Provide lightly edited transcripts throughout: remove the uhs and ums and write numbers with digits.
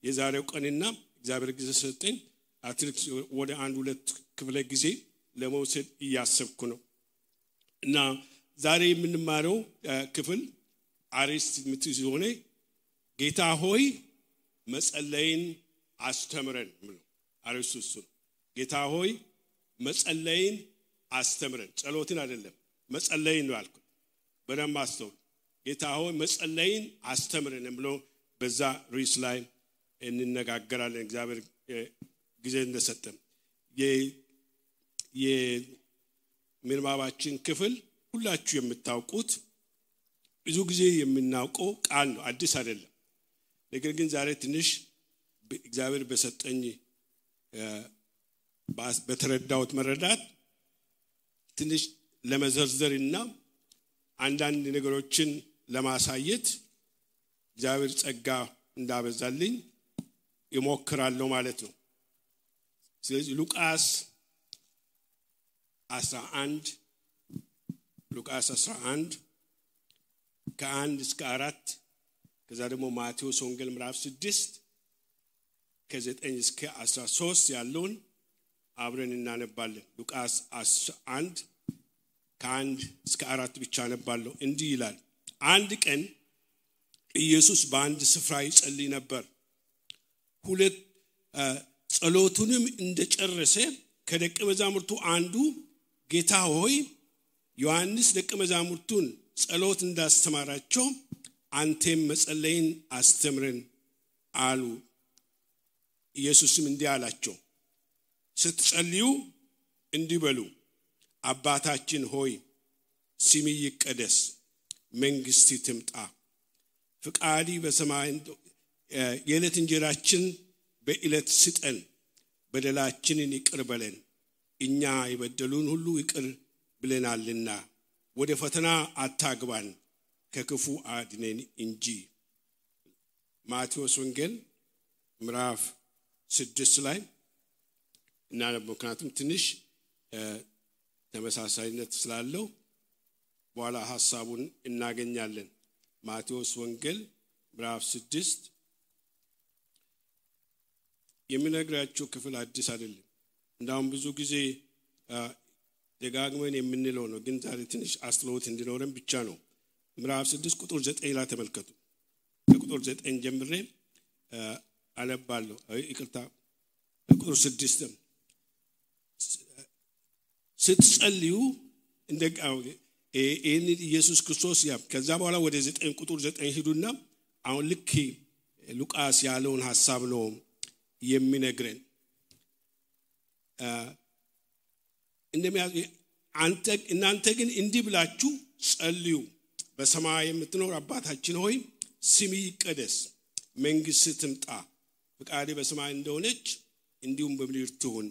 የዛሬው ቀንና እግዚአብሔር ጊዜ ሰጠኝ አትሪክስ ወደ አንድ ሁለት ክፍለ ጊዜ ለመውሰድ እያሰብኩ ነው እና ዛሬ የምንማረው ክፍል አሪስት ምትይዞኔ ጌታ ሆይ መጸለይን አስተምረን ነው አሪስቱ ጌታ ሆይ መጸለይን አስተምረን ጸሎትን አይደለም መጸለይን ነው አልኩ በደም አስተው ጌታ ሆይ መጸለይን አስተምረን ብሎ በዛ ሪስ ላይ እንነጋገራለን እግዚአብሔር ጊዜ እንደሰጠን የምንባባችን ክፍል ሁላችሁ የምታውቁት ብዙ ጊዜ የምናውቀው ቃል ነው አዲስ አይደለም ነገር ግን ዛሬ ትንሽ እግዚአብሔር በሰጠኝ በተረዳውት መረዳት ትንሽ ለመዘርዘርና አንዳንድ ነገሮችን ለማሳየት እግዚአብሔር ጸጋ እንዳበዛልኝ ይሞክራለሁ ማለት ነው ስለዚህ ሉቃስ 11 ከ1 እስከ 4 ከዛ ደግሞ ማቴዎስ ወንጌል ምዕራፍ 6 ከ9 እስከ 13 ያለውን አብረን እናነባለን ሉቃስ 11 ከ1 እስከ 4 ብቻ አነባለሁ እንዲህ ይላል አንድ ቀን ኢየሱስ በአንድ ስፍራ ይጸልይ ነበር ሁለት ጸሎቱንም እንደጨረሰ ከደቀ መዛሙርቱ አንዱ ጌታ ሆይ ዮሐንስ ደቀ መዛሙርቱን ጸሎት እንዳስተማራቸው አንተም መጸለይን አስተምረን አሉ ኢየሱስም እንዲህ አላቸው ስትጸልዩ እንዲህ በሉ አባታችን ሆይ ስምህ ይቀደስ መንግሥትህ ትምጣ ፍቃዲ በሰማይ የዕለት እንጀራችን በዕለት ስጠን በደላችንን ይቅር በለን እኛ የበደሉን ሁሉ ይቅር ብለናልና ወደ ፈተና አታግባን ከክፉ አድነን እንጂ ማቴዎስ ወንጌል ምዕራፍ 6 ላይ እና ምክንያቱም ትንሽ ተመሳሳይነት ስላለው በኋላ ሐሳቡን እናገኛለን ማቴዎስ ወንጌል ምዕራፍ 6 የሚነግራችሁ ክፍል አዲስ አይደለም እንዳውም ብዙ ጊዜ ደጋግመን የምንለው ነው ግን ዛሬ ትንሽ አስተውሎት እንዲኖረን ብቻ ነው ምዕራፍ 6 ቁጥር 9 ላይ ተመልከቱ ከቁጥር 9 ጀምሬ አነባለሁ ይቅርታ ቁጥር 6 ስትጸልዩ እንደጋው እኔ ኢየሱስ ክርስቶስ ያ ከዛ በኋላ ወደ 9 ቁጥር 9 ሄዱና አሁን ልክ ሉቃስ ያለውን ሐሳብ ነው የሚነግረን እናንተ ግን እንዲህ ብላችሁ ጸልዩ በሰማይ የምትኖር አባታችን ሆይ ስምህ ይቀደስ መንግሥትህ ትምጣ ፍቃድህ በሰማይ እንደሆነች እንዲሁም በምድር ትሁን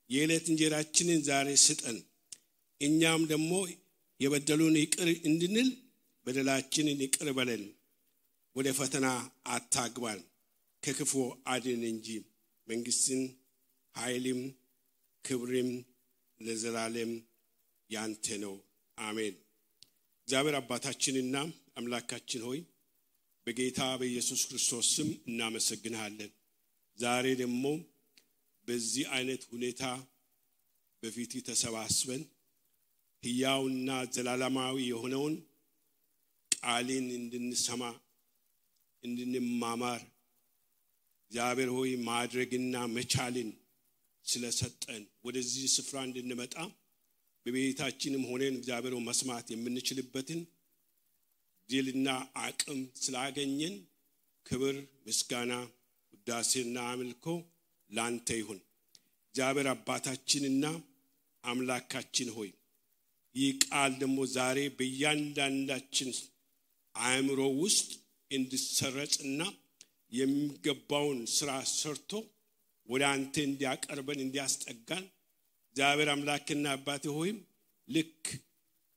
የዕለት እንጀራችንን ዛሬ ስጠን እኛም ደግሞ የበደሉን ይቅር እንድንል በደላችንን ይቅር በለን ወደ ፈተና አታግባን ከክፉ አድነን እንጂ መንግሥትን ኃይልም ክብርም ለዘላለም ያንተ ነው አሜን እግዚአብሔር አባታችንና አምላካችን ሆይ በጌታ በኢየሱስ ክርስቶስ ስም እናመሰግንሃለን ዛሬ ደግሞ በዚህ አይነት ሁኔታ በፊት ተሰባስበን ሕያውና ዘላለማዊ የሆነውን ቃልን እንድንሰማ እንድንማማር እግዚአብሔር ሆይ ማድረግና መቻልን ስለሰጠን ወደዚህ ስፍራ እንድንመጣ በቤታችንም ሆነን እግዚአብሔር መስማት የምንችልበትን ድልና አቅም ስላገኘን ክብር ምስጋና ውዳሴና አምልኮ ላንተ ይሁን እግዚአብሔር አባታችንና አምላካችን ሆይ ይህ ቃል ደግሞ ዛሬ በእያንዳንዳችን አእምሮ ውስጥ እንዲሰረጽና የሚገባውን ስራ ሰርቶ ወደ አንተ እንዲያቀርበን እንዲያስጠጋን እግዚአብሔር አምላክና አባቴ ሆይ ልክ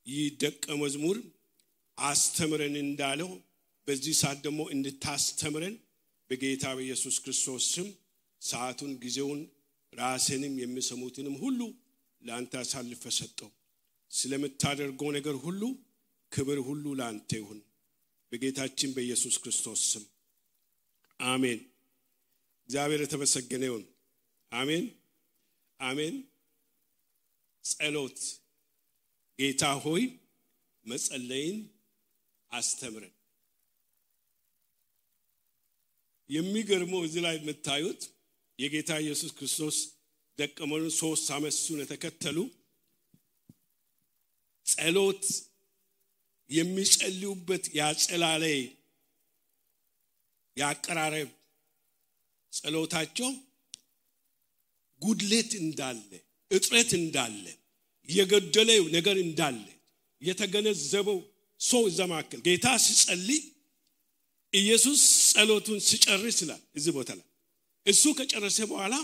ይህ ደቀ መዝሙር አስተምረን እንዳለው በዚህ ሰዓት ደግሞ እንድታስተምረን በጌታ በኢየሱስ ክርስቶስ ስም ሰዓቱን ጊዜውን ራስንም የሚሰሙትንም ሁሉ ላንተ አሳልፈ ሰጠው ስለምታደርገው ነገር ሁሉ ክብር ሁሉ ላንተ ይሁን በጌታችን በኢየሱስ ክርስቶስ ስም አሜን እግዚአብሔር የተመሰገነ ይሁን። አሜን አሜን። ጸሎት ጌታ ሆይ መጸለይን አስተምረን። የሚገርመው እዚህ ላይ የምታዩት የጌታ ኢየሱስ ክርስቶስ ደቀ መዛሙርት 3 ዓመት እሱን ተከተሉ ጸሎት የሚጸልዩበት ያጸላለይ ያቀራረብ ጸሎታቸው ጉድለት እንዳለ እጥረት እንዳለ የገደለው ነገር እንዳለ የተገነዘበው ሰው ዘማከል ጌታ ሲጸልይ ኢየሱስ ጸሎቱን ሲጨርስ ይላል እዚህ ቦታ ላይ እሱ ከጨረሰ በኋላ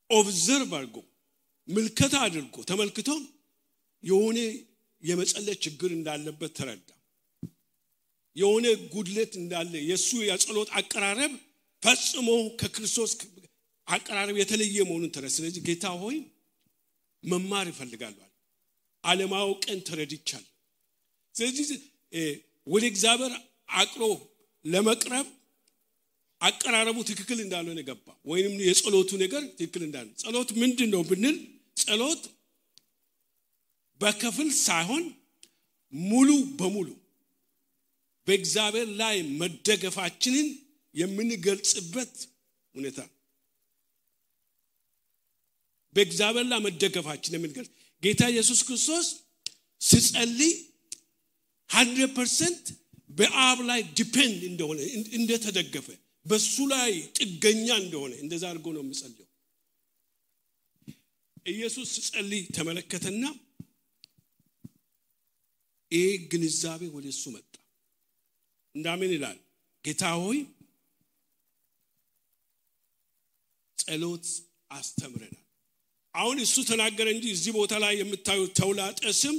ኦብዘርቭ አድርጎ ምልከታ አድርጎ ተመልክቶ የሆነ የመጸለይ ችግር እንዳለበት ተረዳ። የሆነ ጉድለት እንዳለ የሱ የጸሎት አቀራረብ ፈጽሞ ከክርስቶስ አቀራረብ የተለየ መሆኑን ተረዳ። ስለዚህ ጌታ ሆይ መማር ይፈልጋል ዓለማውቀን ተረድቻለሁ። ስለዚህ ወደ እግዚአብሔር አቅሮ ለመቅረብ አቀራረቡ ትክክል እንዳልሆነ ገባ። ወይንም የጸሎቱ ነገር ትክክል እንዳልሆነ ጸሎት ምንድነው ብንል ጸሎት በከፍል ሳይሆን ሙሉ በሙሉ በእግዚአብሔር ላይ መደገፋችንን የምንገልጽበት ሁኔታ በእግዚአብሔር ላይ መደገፋችንን የምንገልጽ ጌታ ኢየሱስ ክርስቶስ ሲጸልይ 100% በአብ ላይ ዲፔንድ እንደሆነ እንደተደገፈ በሱ ላይ ጥገኛ እንደሆነ እንደዛ አድርጎ ነው የሚጸልየው። ኢየሱስ ሲጸልይ ተመለከተና ግንዛቤ ወደሱ መጣ። እንዳምን ይላል ጌታ ሆይ ጸሎት አስተምረናል። አሁን እሱ ተናገረ እንጂ እዚህ ቦታ ላይ የምታዩት ተውላጠ ስም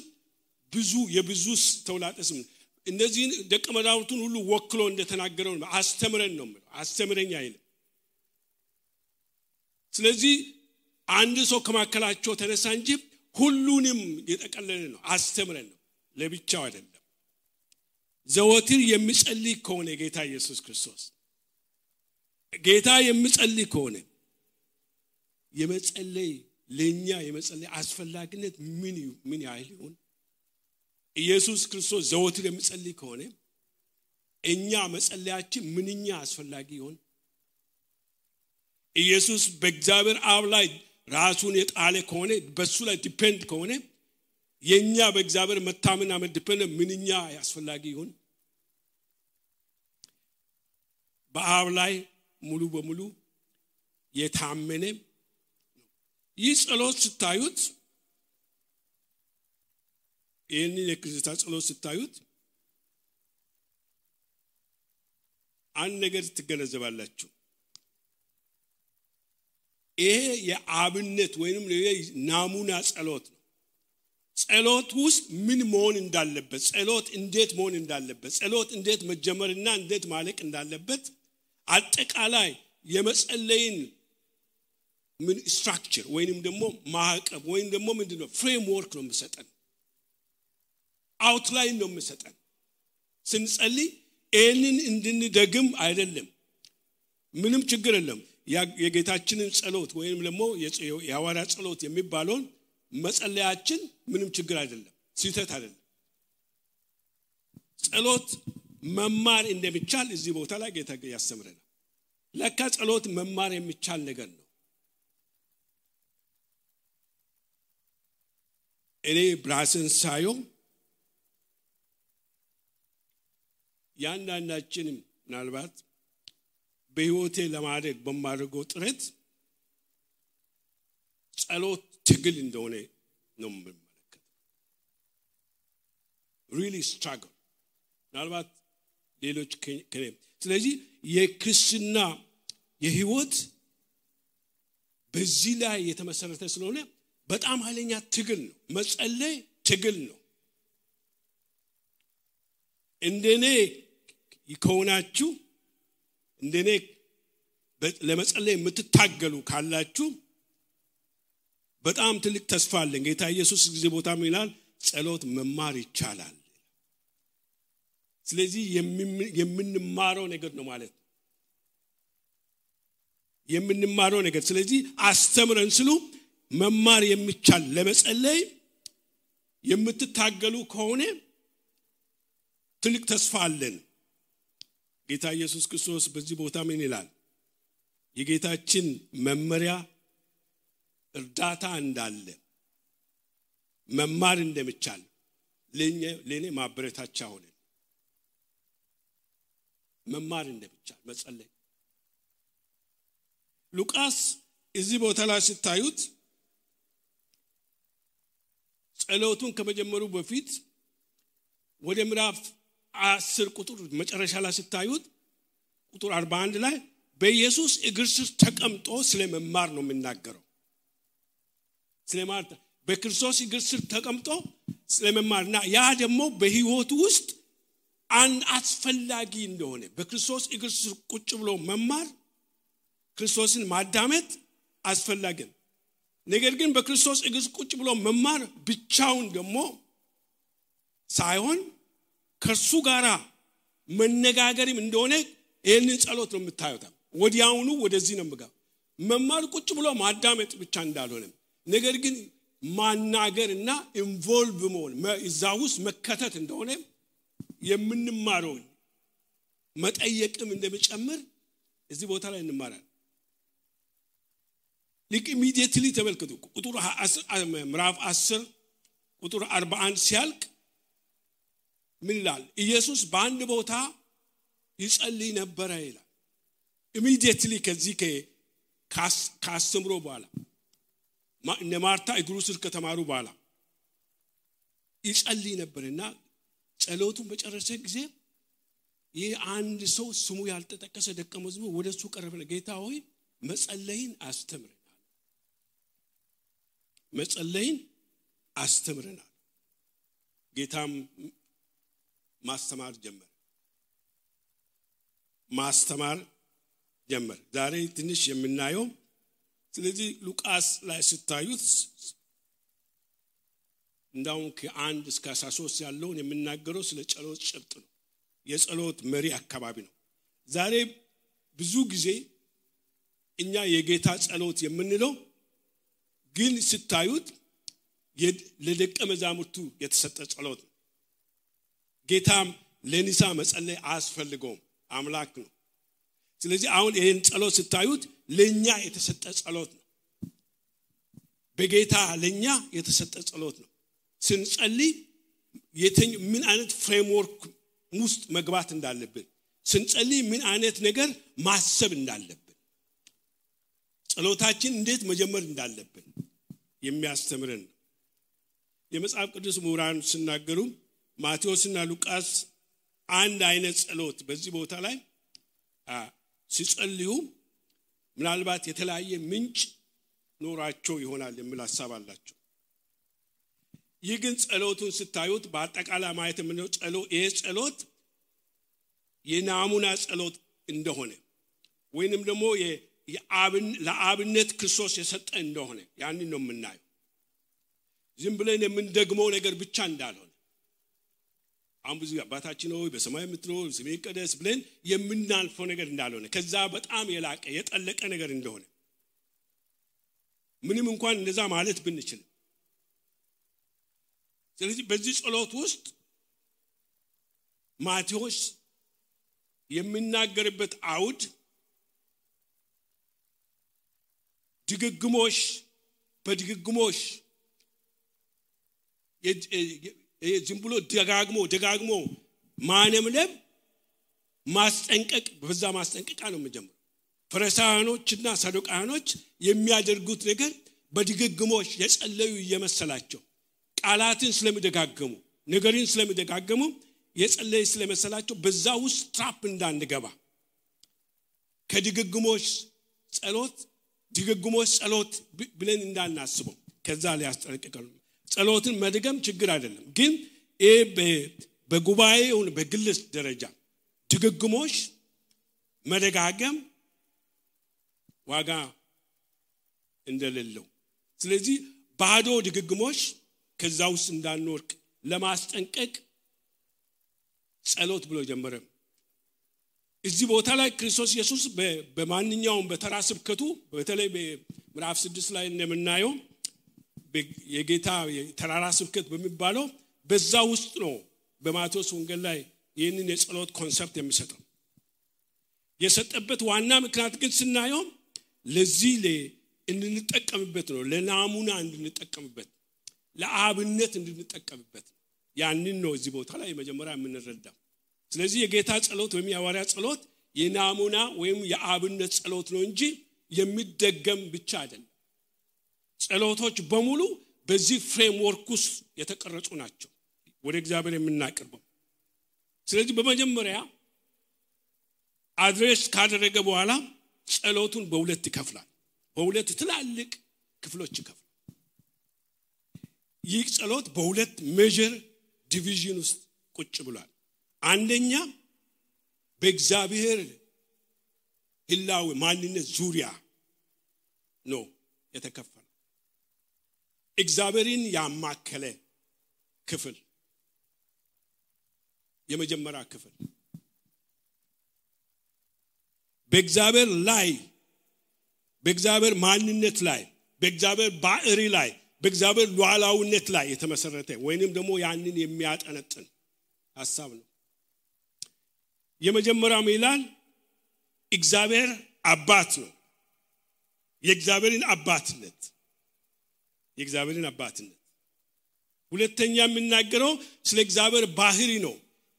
የብዙ ተውላጠ ስም እነዚህን ደቀ መዛሙርቱን ሁሉ ወክሎ እንደተናገረው አስተምረን ነው ማለት አስተምረኝ አይልም። ስለዚህ አንድ ሰው ከማከላቸው ተነሳ እንጂ ሁሉንም የጠቀለለ ነው አስተምረን ነው ለብቻው አይደለም። ዘወትር የሚጸልይ ከሆነ ጌታ ኢየሱስ ክርስቶስ ጌታ የሚጸልይ ከሆነ የመጸለይ ለኛ የመጸለይ አስፈላጊነት ምን ያህል ይሆን? ኢየሱስ ክርስቶስ ዘወትር የሚጸልይ ከሆነ እኛ መጸለያችን ምንኛ አስፈላጊ ይሆን? ኢየሱስ በእግዚአብሔር አብ ላይ ራሱን የጣለ ከሆነ በሱ ላይ ዲፔንድ ከሆነ የኛ በእግዚአብሔር መታመንና መድፈን ምንኛ አስፈላጊ ይሆን? በአብ ላይ ሙሉ በሙሉ የታመነ ይህ ጸሎት ስታዩት ይህንን የክርስቲያን ጸሎት ስታዩት አንድ ነገር ትገነዘባላችሁ። ይሄ የአብነት ወይንም ናሙና ጸሎት ነው። ጸሎት ውስጥ ምን መሆን እንዳለበት ጸሎት እንዴት መሆን እንዳለበት ጸሎት እንዴት መጀመርና እንዴት ማለቅ እንዳለበት አጠቃላይ የመጸለይን ምን ስትራክቸር ወይንም ደግሞ ማዕቀፍ ወይንም ደግሞ ምንድነው ፍሬምወርክ ነው የሚሰጠን አውትላይን ነው የሚሰጠን። ስንጸልይ ይህንን እንድንደግም አይደለም ምንም ችግር የለም። የጌታችንን ጸሎት ወይንም ደግሞ የሐዋርያ ጸሎት የሚባለውን መጸለያችን ምንም ችግር አይደለም ስህተት አይደለም። ጸሎት መማር እንደሚቻል እዚህ ቦታ ላይ ጌታ ያስተምረናል። ለካ ጸሎት መማር የሚቻል ነገር ነው። እኔ ብራስን ሳየው ያንዳንዳችንም ምናልባት በህይወቴ ለማድረግ በማድረገው ጥረት ጸሎት ትግል እንደሆነ ነው የምመለከተው። really struggle ምናልባት ሌሎች ከኔ ስለዚህ የክርስትና የህይወት በዚህ ላይ የተመሰረተ ስለሆነ በጣም ኃይለኛ ትግል ነው። መጸለይ ትግል ነው። እንደኔ ይከውናችሁ እንደኔ ለመጸለይ የምትታገሉ ካላችሁ በጣም ትልቅ ተስፋ አለን። ጌታ ኢየሱስ ጊዜ ቦታም ይላል ጸሎት መማር ይቻላል። ስለዚህ የምንማረው ነገር ነው ማለት ነው። የምንማረው ነገር ስለዚህ አስተምረን ስሉ መማር የሚቻል ለመጸለይ የምትታገሉ ከሆነ ትልቅ ተስፋ አለን ጌታ ኢየሱስ ክርስቶስ በዚህ ቦታ ምን ይላል የጌታችን መመሪያ እርዳታ እንዳለ መማር እንደምቻል ለኔ ማበረታቻ ሆነ መማር እንደምቻል መጸለይ ሉቃስ እዚህ ቦታ ላይ ሲታዩት ጸሎቱን ከመጀመሩ በፊት ወደ ምዕራፍ 10 ቁጥር መጨረሻ ላይ ሲታዩት ቁጥር 41 ላይ በኢየሱስ እግር ስር ተቀምጦ ስለመማር ነው የሚናገረው ስለማር በክርስቶስ እግር ስር ተቀምጦ ስለመማርና ያ ደግሞ በህይወቱ ውስጥ አንድ አስፈላጊ እንደሆነ በክርስቶስ እግር ስር ቁጭ ብሎ መማር ክርስቶስን ማዳመጥ አስፈላጊ ነው ነገር ግን በክርስቶስ እግር ቁጭ ብሎ መማር ብቻውን ደግሞ ሳይሆን ከሱ ጋራ መነጋገርም እንደሆነ ይሄንን ጸሎት ነው የምታዩት ወዲያውኑ ወደዚህ ነው የምገባው መማር ቁጭ ብሎ ማዳመጥ ብቻ እንዳልሆነ ነገር ግን ማናገርና ኢንቮልቭ መሆን እዛው ውስጥ መከተት እንደሆነ የምንማረው መጠየቅም እንደሚጨምር እዚህ ቦታ ላይ እንማራለን ልክ ኢሚዲየትሊ ተመልከቱ ቁጥር 10 ምዕራፍ 10 ቁጥር 41 ሲያልቅ ምን ይላል ኢየሱስ በአንድ ቦታ ይጸልይ ነበር ይላል ኢሚዲየትሊ ከዚህ ካስተምሮ በኋላ እነ ማርታ እግሩ ስር ከተማሩ በኋላ ይጸልይ ነበርና ጸሎቱን በጨረሰ ጊዜ ይህ አንድ ሰው ስሙ ያልተጠቀሰ ደቀ መዝሙር ወደሱ ቀረበና ጌታ ሆይ መጸለይን አስተምረናል ጌታም ማስተማር ጀመረ ዛሬ ትንሽ የምናየው ስለዚህ ሉቃስ ላይ ሲታዩት እንዳውም ከ1 እስከ 13 ያለውን የምናገረው ስለ ጸሎት ጭብጥ ነው የጸሎት መሪ አካባቢ ነው ዛሬ ብዙ ጊዜ እኛ የጌታ ጸሎት የምንለው ግን ሲታዩት ለደቀ መዛሙርቱ የተሰጠ ጸሎት ነው ጌታም ለኒሳ መጸለይ አስፈልገው አምላክ ነው ስለዚህ አሁን ይሄን ጸሎት ሲታዩት ለኛ የተሰጠ ጸሎት ነው በጌታ ለኛ የተሰጠ ጸሎት ነው ስንጸልይ ምን አይነት ፍሬምወርክ ውስጥ መግባት እንዳለብን ስንጸልይ ምን አይነት ነገር ማሰብ እንዳለብን ጸሎታችን እንዴት መጀመር እንዳለብን የሚያስተምረን የመጽሐፍ ቅዱስ ምሁራን ሲናገሩ ማቴዎስና ሉቃስ አንድ አይነት ጸሎት በዚህ ቦታ ላይ ሲጸልዩ ምናልባት የተለያየ ምንጭ ኖራቸው ይሆናል የሚል ሐሳብ አላቸው ይግን ጸሎቱን ስታዩት በአጠቃላይ ማየት ምንድነው ጸሎት የናሙና ጸሎት እንደሆነ ወይንም ደግሞ ለአብነት ክርስቶስ የሰጠ እንደሆነ ያንን ነው የምናየው ዝም ብለን የምንደግመው ነገር ብቻ እንዳልሆነ አምቡዚ አባታችን ሆይ በሰማይ የምትኖር ስምህ ይቀደስ ብለን የምናልፈው ነገር እንዳልሆነ ከዛ በጣም የላቀ የጠለቀ ነገር እንደሆነ ምንም እንኳን እንደዛ ማለት ብንችል ስለዚህ በዚህ ጸሎት ውስጥ ማቴዎስ የሚናገርበት አውድ በድግግሞሽ ዝም ብሎ ደጋግሞ ማነምለም ማስጠንቀቅ በዛ ማስጠንቀቃ ነው የሚጀምረው ፈሪሳውያኖችና ሰዱቃውያኖች የሚያደርጉት ነገር በድግግሞሽ የጸለዩ እየመሰላቸው ቃላትን ስለሚደጋገሙ ነገርን ስለሚደጋገሙ የጸለዩ ስለመሰላቸው በዛ ውስጥ ትራፕ እንዳንገባ ከድግግሞሽ ጸሎት ብለን እንዳናስበው ከዛ ላይ ያስጠነቅቃሉ ጸሎትን መድገም ችግር አይደለም ግን በጉባኤው በግልስ ደረጃ ድግግሞሽ መደጋገም ዋጋ እንደሌለው ስለዚህ ባዶ ድግግሞሽ ከዛ ውስጥ እንዳንወርቅ ለማስጠንቀቅ ጸሎት ብሎ ጀመረ እዚህ ቦታ ላይ ክርስቶስ ኢየሱስ በማንኛውም በተራ ስብከቱ በተለይ በምዕራፍ 6 ላይ እንደምናየው የጌታ ተራራ ስብከት በሚባለው በዛ ውስጥ ነው በማቴዎስ ወንጌል ላይ ይህንን የጸሎት ኮንሰፕት የሚሰጠው። የሰጠበት ዋና ምክንያት ግን ስናየው ለዚህ እንድንጠቀምበት ነው፣ ለናሙና እንድንጠቀምበት፣ ለአብነት እንድንጠቀምበት ያንን ነው እዚህ ቦታ ላይ መጀመሪያ የምንረዳው። ስለዚህ የጌታ ጸሎት ወይም የሐዋርያ ጸሎት የናሙና ወይም የአብነት ጸሎት ነው እንጂ የሚደገም ብቻ አይደለም። ጸሎቶች በሙሉ በዚህ ፍሬምወርክ ውስጥ የተቀረጹ ናቸው ወደ እግዚአብሔር የምናቀርበው። ስለዚህ በመጀመሪያ አድሬስ ካደረገ በኋላ ጸሎቱን በሁለት ይከፍላል፣ በሁለት ትላልቅ ክፍሎች ይከፍላል። ይህ ጸሎት በሁለት ሜጀር ዲቪዥን ውስጥ ቁጭ ብሏል። አንደኛ በእግዚአብሔር ህላዌ ማንነት ዙሪያ ነው የተከፈለው። እግዚአብሔርን ያማከለ ክፍል የመጀመሪያ ክፍል በእግዚአብሔር ላይ በእግዚአብሔር ማንነት ላይ በእግዚአብሔር ባህሪ ላይ በእግዚአብሔር ሉዓላዊነት ላይ የተመሰረተ ወይንም ደግሞ ያንን የሚያጠነጥን ሐሳብ ነው። የመጀመሪያው ይላል እግዚአብሔር አባት ነው። የእግዚአብሔርን አባትነት ሁለተኛ የምናገረው ስለ እግዚአብሔር ባህሪ ነው።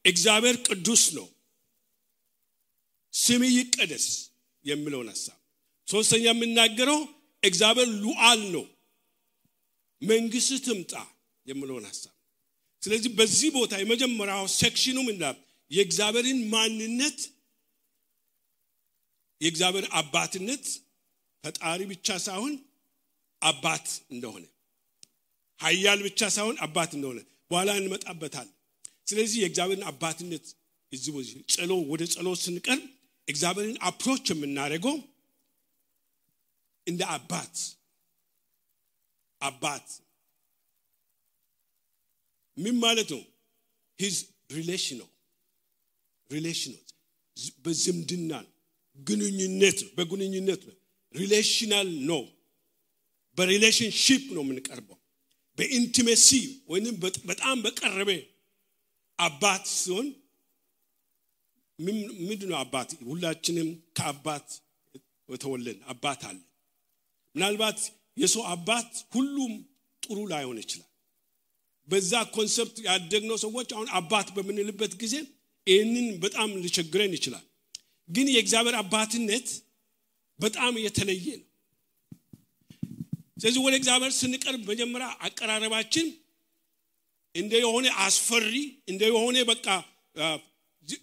እግዚአብሔር ቅዱስ ነው፣ ስሙ ይቀደስ የሚለውን ሐሳብ። ሶስተኛ የምናገረው እግዚአብሔር ሉዓል ነው፣ መንግስት ትምጣ የሚለውን ሐሳብ። ስለዚህ በዚህ ቦታ የመጀመሪያው ሴክሽኑ ምንድነው? የእግዚአብሔርን ማንነት፣ የእግዚአብሔር አባትነት፣ ፈጣሪ ብቻ ሳይሆን አባት እንደሆነ፣ ኃያል ብቻ ሳይሆን አባት እንደሆነ በኋላ እንመጣበታለን። ስለዚህ የእግዚአብሔርን አባትነት እዚህ ወደ ጸሎት ስንቀርብ እግዚአብሔርን አፕሮች የምናደርገው እንደ አባት ምን ማለት ነው? his relational በዝምድና ግንኙነት ነው። ሪሌሽናል ነው፣ በሪሌሽንሺፕ ነው የምንቀርበው። በኢንቲሜሲ ወይንም በጣም በቀረበ አባት ሲሆን ምንድነው አባት? ሁላችንም ከአባት የተወለድን አባት አለ። ምናልባት የሰው አባት ሁሉም ጥሩ ላይሆን ይችላል። በዛ ኮንሰፕት ያደግነው ሰዎች አሁን አባት በምንልበት ጊዜ ይህንን በጣም ሊቸግረን ይችላል። ግን የእግዚአብሔር አባትነት በጣም የተለየ ነው። ስለዚህ ወደ እግዚአብሔር ስንቀርብ መጀመሪያ አቀራረባችን እንደ የሆነ አስፈሪ እንደ የሆነ በቃ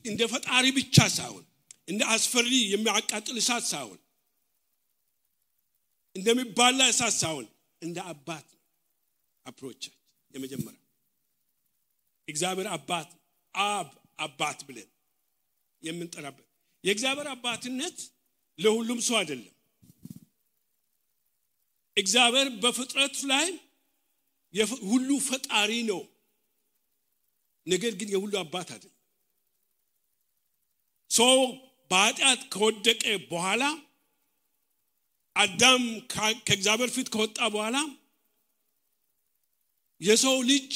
እንደ ፈጣሪ ብቻ ሳይሆን እንደ አስፈሪ የሚያቃጥል እሳት ሳይሆን እንደሚባላ እሳት ሳይሆን እንደ አባት አፕሮች የመጀመሪያ እግዚአብሔር አባት ብለን የምንጠራበት። የእግዚአብሔር አባትነት ለሁሉም ሰው አይደለም። እግዚአብሔር በፍጥረት ላይ ሁሉ ፈጣሪ ነው፣ ነገር ግን የሁሉ አባት አይደለም። ሰው በኃጢአት ከወደቀ በኋላ አዳም ከእግዚአብሔር ፊት ከወጣ በኋላ የሰው ልጅ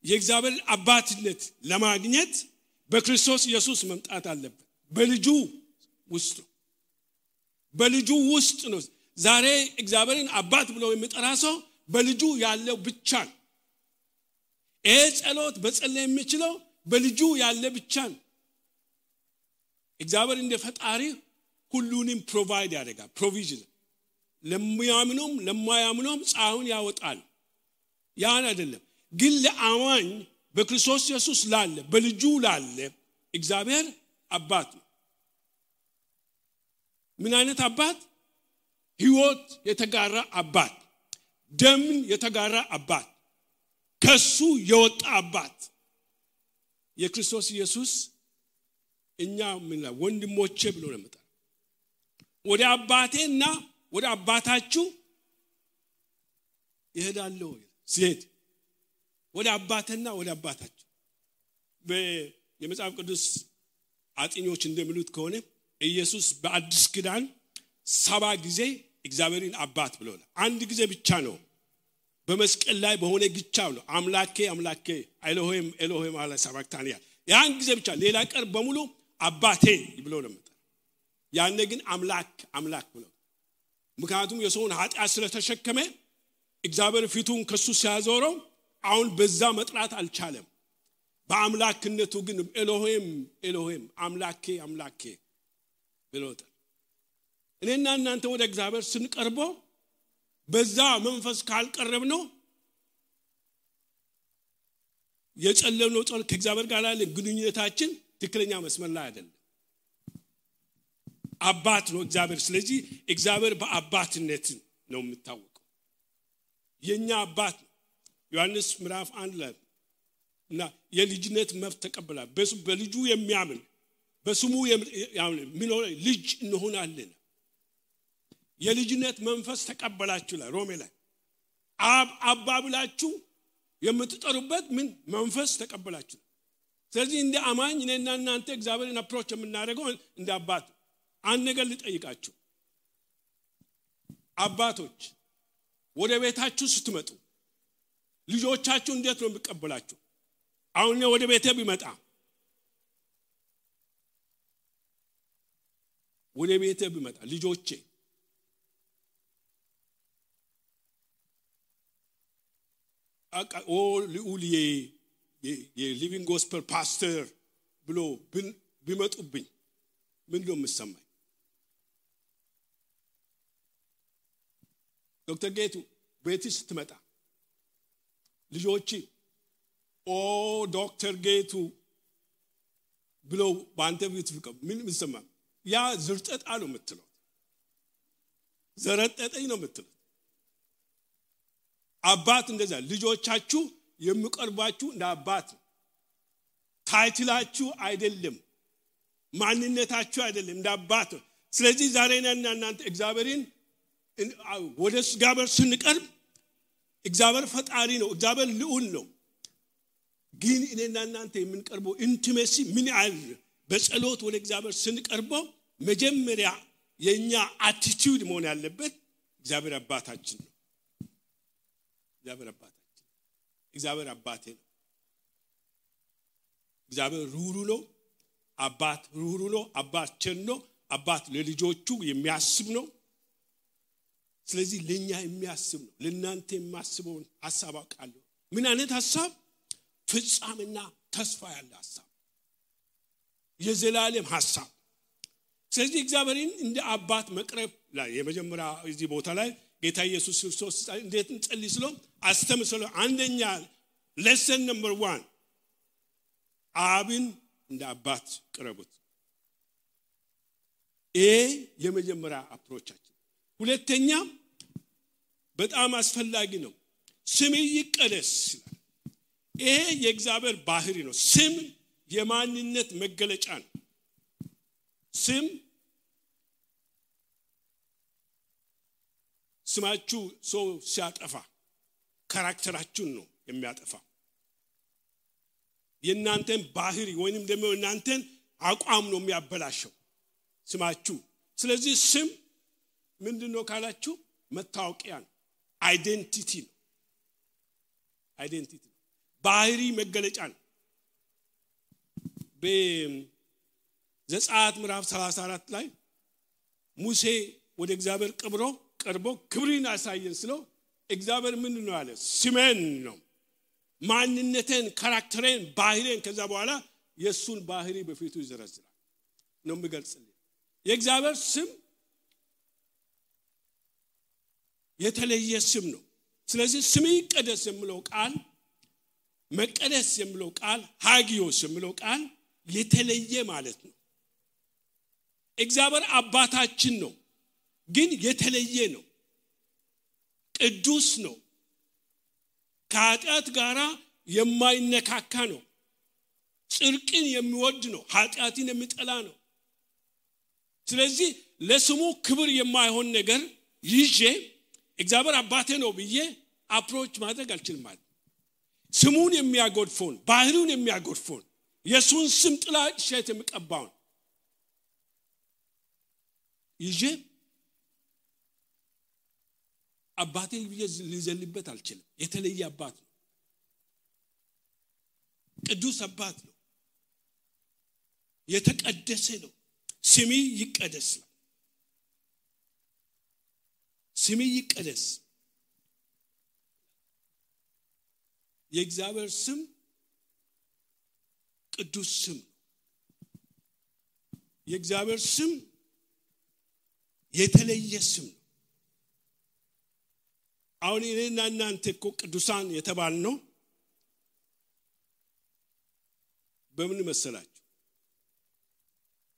የእግዚአብሔር አባትነት ለማግኘት በክርስቶስ ኢየሱስ መምጣት አለበት። በልጁ ውስጥ ነው። ዛሬ እግዚአብሔርን አባት ብሎ የሚጠራ ሰው በልጁ ያለው ብቻ ነው። ይሄ ጸሎት በጸለይ የሚችለው በልጁ ያለ ብቻ ነው። እግዚአብሔር እንደ ፈጣሪ ሁሉንም ፕሮቫይድ ያደርጋል። ፕሮቪዥን ለሚያምኑም ለማያምኑም ፀሐዩን ያወጣል። ያን አይደለም ግን ለአማኝ በክርስቶስ ኢየሱስ ላለ በልጁ ላለ እግዚአብሔር አባት ነው። ምን አይነት አባት? ሕይወት የተጋራ አባት፣ ደምን የተጋራ አባት፣ ከሱ የወጣ አባት። የክርስቶስ ኢየሱስ እኛ ምን ወንድሞቼ ብሎ ነው መጣ። ወደ አባቴና ወደ አባታችሁ ይሄዳለሁ ሲሄድ ወደ አባቴና ወደ አባታችሁ። የመጽሐፍ ቅዱስ አጥኞች እንደሚሉት ከሆነ ኢየሱስ በአዲስ ኪዳን 7 ጊዜ እግዚአብሔርን አባት ብሎናል። አንድ ጊዜ ብቻ ነው በመስቀል ላይ በሆነ ግቻው ነው አምላኬ አምላኬ ኤሎሄም ኤሎሄም አለ ሰባክታንያ ያን ጊዜ ብቻ ሌላ ቀር በሙሉ አባቴ ብሎ ነው መጣ። ያኔ ግን አምላክ አምላክ ብሎ ምክንያቱም የሰውን ኃጢአት ስለተሸከመ እግዚአብሔር ፊቱን ከሱ ሲያዞረው አሁን በዛ መጥራት አልቻለም። በአምላክነቱ ግን ኤሎሄም ኤሎሄም አምላኬ አምላኬ ብሎታል። እኔና እናንተ ወደ እግዚአብሔር ስንቀርበው በዛ መንፈስ ካልቀረብ ነው የጨለምነው ጸሎት ከእግዚአብሔር ጋር ያለ ግንኙነታችን ትክክለኛ መስመር ላይ አይደለም። አባት ነው እግዚአብሔር። ስለዚህ እግዚአብሔር በአባትነት ነው የሚታወቀው። የኛ አባት ዮሐንስ ምዕራፍ 1 ላይ እና የልጅነት መብት ተቀበላል። በልጁ የሚያምን በስሙ የሚኖር ልጅ እንሆናለን። የልጅነት መንፈስ ተቀበላችሁ ላይ ሮሜ ላይ አባ ብላችሁ የምትጠሩበት ምን መንፈስ ተቀበላችሁ። ስለዚህ እንደ አማኝ እኔና እናንተ እግዚአብሔርን አፕሮች የምናደርገው እንደ አባት። አንድ ነገር ልጠይቃችሁ አባቶች፣ ወደ ቤታችሁ ስትመጡ ልጆቻችሁ እንዴት ነው የሚቀበላችሁ? አሁን እኔ ወደ ቤቴ ቢመጣ ልጆቼ ልዑል የሊቪንግ ጎስፐል ፓስተር ብሎ ቢመጡብኝ ምን ነው የምሰማኝ? ዶክተር ጌቱ ቤት ስትመጣ ልጆቼ ዶክተር ጌቱ ብሎ ባንተ ቤት ምን ምሰማ? ያ ዝርጠጣ ነው የምትለው፣ ዘረጠጠኝ ነው የምትለው። አባት እንደዛ ልጆቻችሁ የሚቀርባችሁ እንደ አባት ታይትላችሁ አይደለም፣ ማንነታችሁ አይደለም፣ እንደ አባት። ስለዚህ ዛሬ እናንተ እግዚአብሔርን ወደ እግዚአብሔር ስንቀርብ እግዚአብሔር ፈጣሪ ነው፣ እግዚአብሔር ልዑል ነው። ግን እኔና እናንተ የምንቀርበው ኢንቲሜሲ ምን ያህል በጸሎት ወደ እግዚአብሔር ስንቀርበው መጀመሪያ የኛ አቲቲዩድ መሆን ያለበት እግዚአብሔር አባታችን ነው። እግዚአብሔር አባቴ ነው። እግዚአብሔር ሩሩ ነው። አባት ሩሩ ነው። አባት ቸር ነው። አባት ለልጆቹ የሚያስብ ነው። ስለዚህ ለኛ የሚያስብ ነው። ለእናንተ የሚያስበውን ሐሳብ አውቃለሁ። ምን አይነት ሐሳብ? ፍጻሜና ተስፋ ያለ ሐሳብ፣ የዘላለም ሐሳብ። ስለዚህ እግዚአብሔርን እንደ አባት መቅረብ ላይ የመጀመሪያ እዚህ ቦታ ላይ ጌታ ኢየሱስ ክርስቶስ እንዴት እንጸልይ ስለው አስተምሰለው አንደኛ ሌሰን ነምበር 1 አብን እንደ አባት ቅረቡት። ይሄ የመጀመሪያ አፕሮቻችን። ሁለተኛ በጣም አስፈላጊ ነው፣ ስም ይቀደስ። ይሄ የእግዚአብሔር ባህሪ ነው። ስም የማንነት መገለጫ ነው። ስም ስማችሁ ሰው ሲያጠፋ ካራክተራችሁን ነው የሚያጠፋ፣ የእናንተን ባህሪ ወይንም ደግሞ እናንተን አቋም ነው የሚያበላሸው ስማችሁ። ስለዚህ ስም ምንድነው ካላችሁ መታወቂያ ነው፣ አይዴንቲቲ ነው። አይዴንቲቲ ባህሪ መገለጫ ነው። በዘጸአት ምዕራፍ 34 ላይ ሙሴ ወደ እግዚአብሔር ቀርቦ ክብርን አሳየን ስለው እግዚአብሔር ምን ነው አለ? ስሜን ነው፣ ማንነቴን፣ ካራክተሬን፣ ባህሪን። ከዛ በኋላ የሱን ባህሪ በፊቱ ይዘረዝራል ነው የሚገልጽልኝ። የእግዚአብሔር ስም የተለየ ስም ነው። ስለዚህ ስም ይቀደስ የሚለው ቃል፣ መቀደስ የሚለው ቃል፣ ሃጊዮስ የሚለው ቃል የተለየ ማለት ነው። እግዚአብሔር አባታችን ነው፣ ግን የተለየ ነው። ቅዱስ ነው። ከኃጢአት ጋራ የማይነካካ ነው። ጽድቅን የሚወድ ነው። ኃጢአትን የሚጠላ ነው። ስለዚህ ለስሙ ክብር የማይሆን ነገር ይዤ እግዚአብሔር አባቴ ነው ብዬ አፕሮች ማድረግ አልችልም ማለት። ስሙን የሚያጎድፈውን፣ ባህሪውን የሚያጎድፈውን፣ የሱን ስም ጥላሸት የሚቀባውን ይዤ አባቴ ሊዘልበት አልችልም። የተለየ አባት ነው። ቅዱስ አባት ነው። የተቀደሰ ነው። ስሚ ይቀደስ። ስሚ ይቀደስ። የእግዚአብሔር ስም ቅዱስ ስም። የእግዚአብሔር ስም የተለየ ስም ነው። አሁን እኔና እናንተ እኮ ቅዱሳን የተባልነው በምን መሰላችሁ?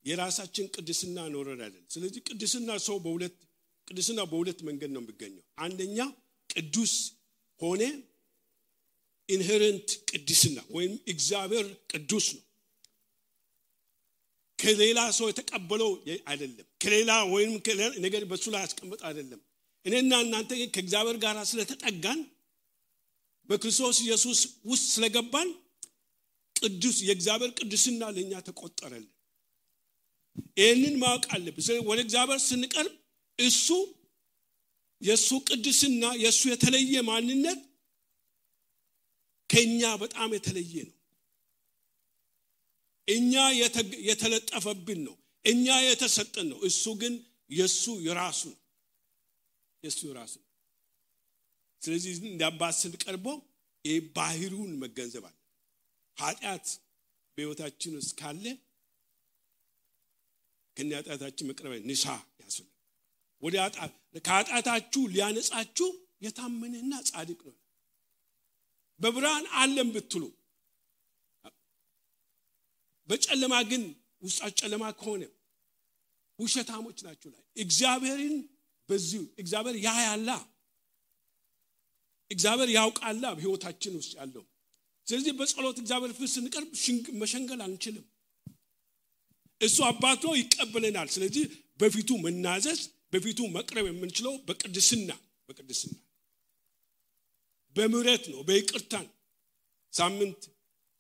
የራሳችን ቅድስና ኖረን አይደለም። ስለዚህ ቅድስና በሁለት መንገድ ነው የሚገኘው። አንደኛ ቅዱስ ሆነ ኢንሄረንት ቅድስና ወይም እግዚአብሔር ቅዱስ ነው። ከሌላ ሰው የተቀበለው አይደለም። ከሌላ ወይም ነገር በሱ ላይ ያስቀመጠ አይደለም። እኔና እናንተ ከእግዚአብሔር ጋር ስለተጠጋን በክርስቶስ ኢየሱስ ውስጥ ስለገባን ቅዱስ የእግዚአብሔር ቅድስና ለኛ ተቆጠረልን። ይህንን ማወቅ አለብን። ወደ እግዚአብሔር ስንቀርብ እሱ የሱ ቅድስና የሱ የተለየ ማንነት ከኛ በጣም የተለየ ነው። እኛ የተለጠፈብን ነው። እኛ የተሰጠን ነው። እሱ ግን የሱ የራሱ ነው። የሱ የራሱ ነው። ስለዚህ እንዳባስ ስንቀርበው ባህሪውን መገንዘብ አለ። ኃጢአት በሕይወታችን ውስጥ ካለ ከኃጢአታችን መቅረብ ንሳ ያስፈልጋል። ወደ ከኃጢአታችሁ ሊያነጻችሁ የታመነና ጻድቅ ነው። በብርሃን ዓለም ብትሉ በጨለማ ግን ውስጣችሁ ጨለማ ከሆነ ውሸታሞች ናችሁ። ላይ እግዚአብሔርን በዚሁ እግዚአብሔር ያያላ፣ እግዚአብሔር ያውቃላ በሕይወታችን ውስጥ ያለው። ስለዚህ በጸሎት እግዚአብሔር ፊት ስንቀርብ መሸንገል አንችልም። እሱ አባቶ ይቀበለናል። ስለዚህ በፊቱ መናዘዝ በፊቱ መቅረብ የምንችለው በቅድስና በምህረት ነው፣ በይቅርታ። ሳምንት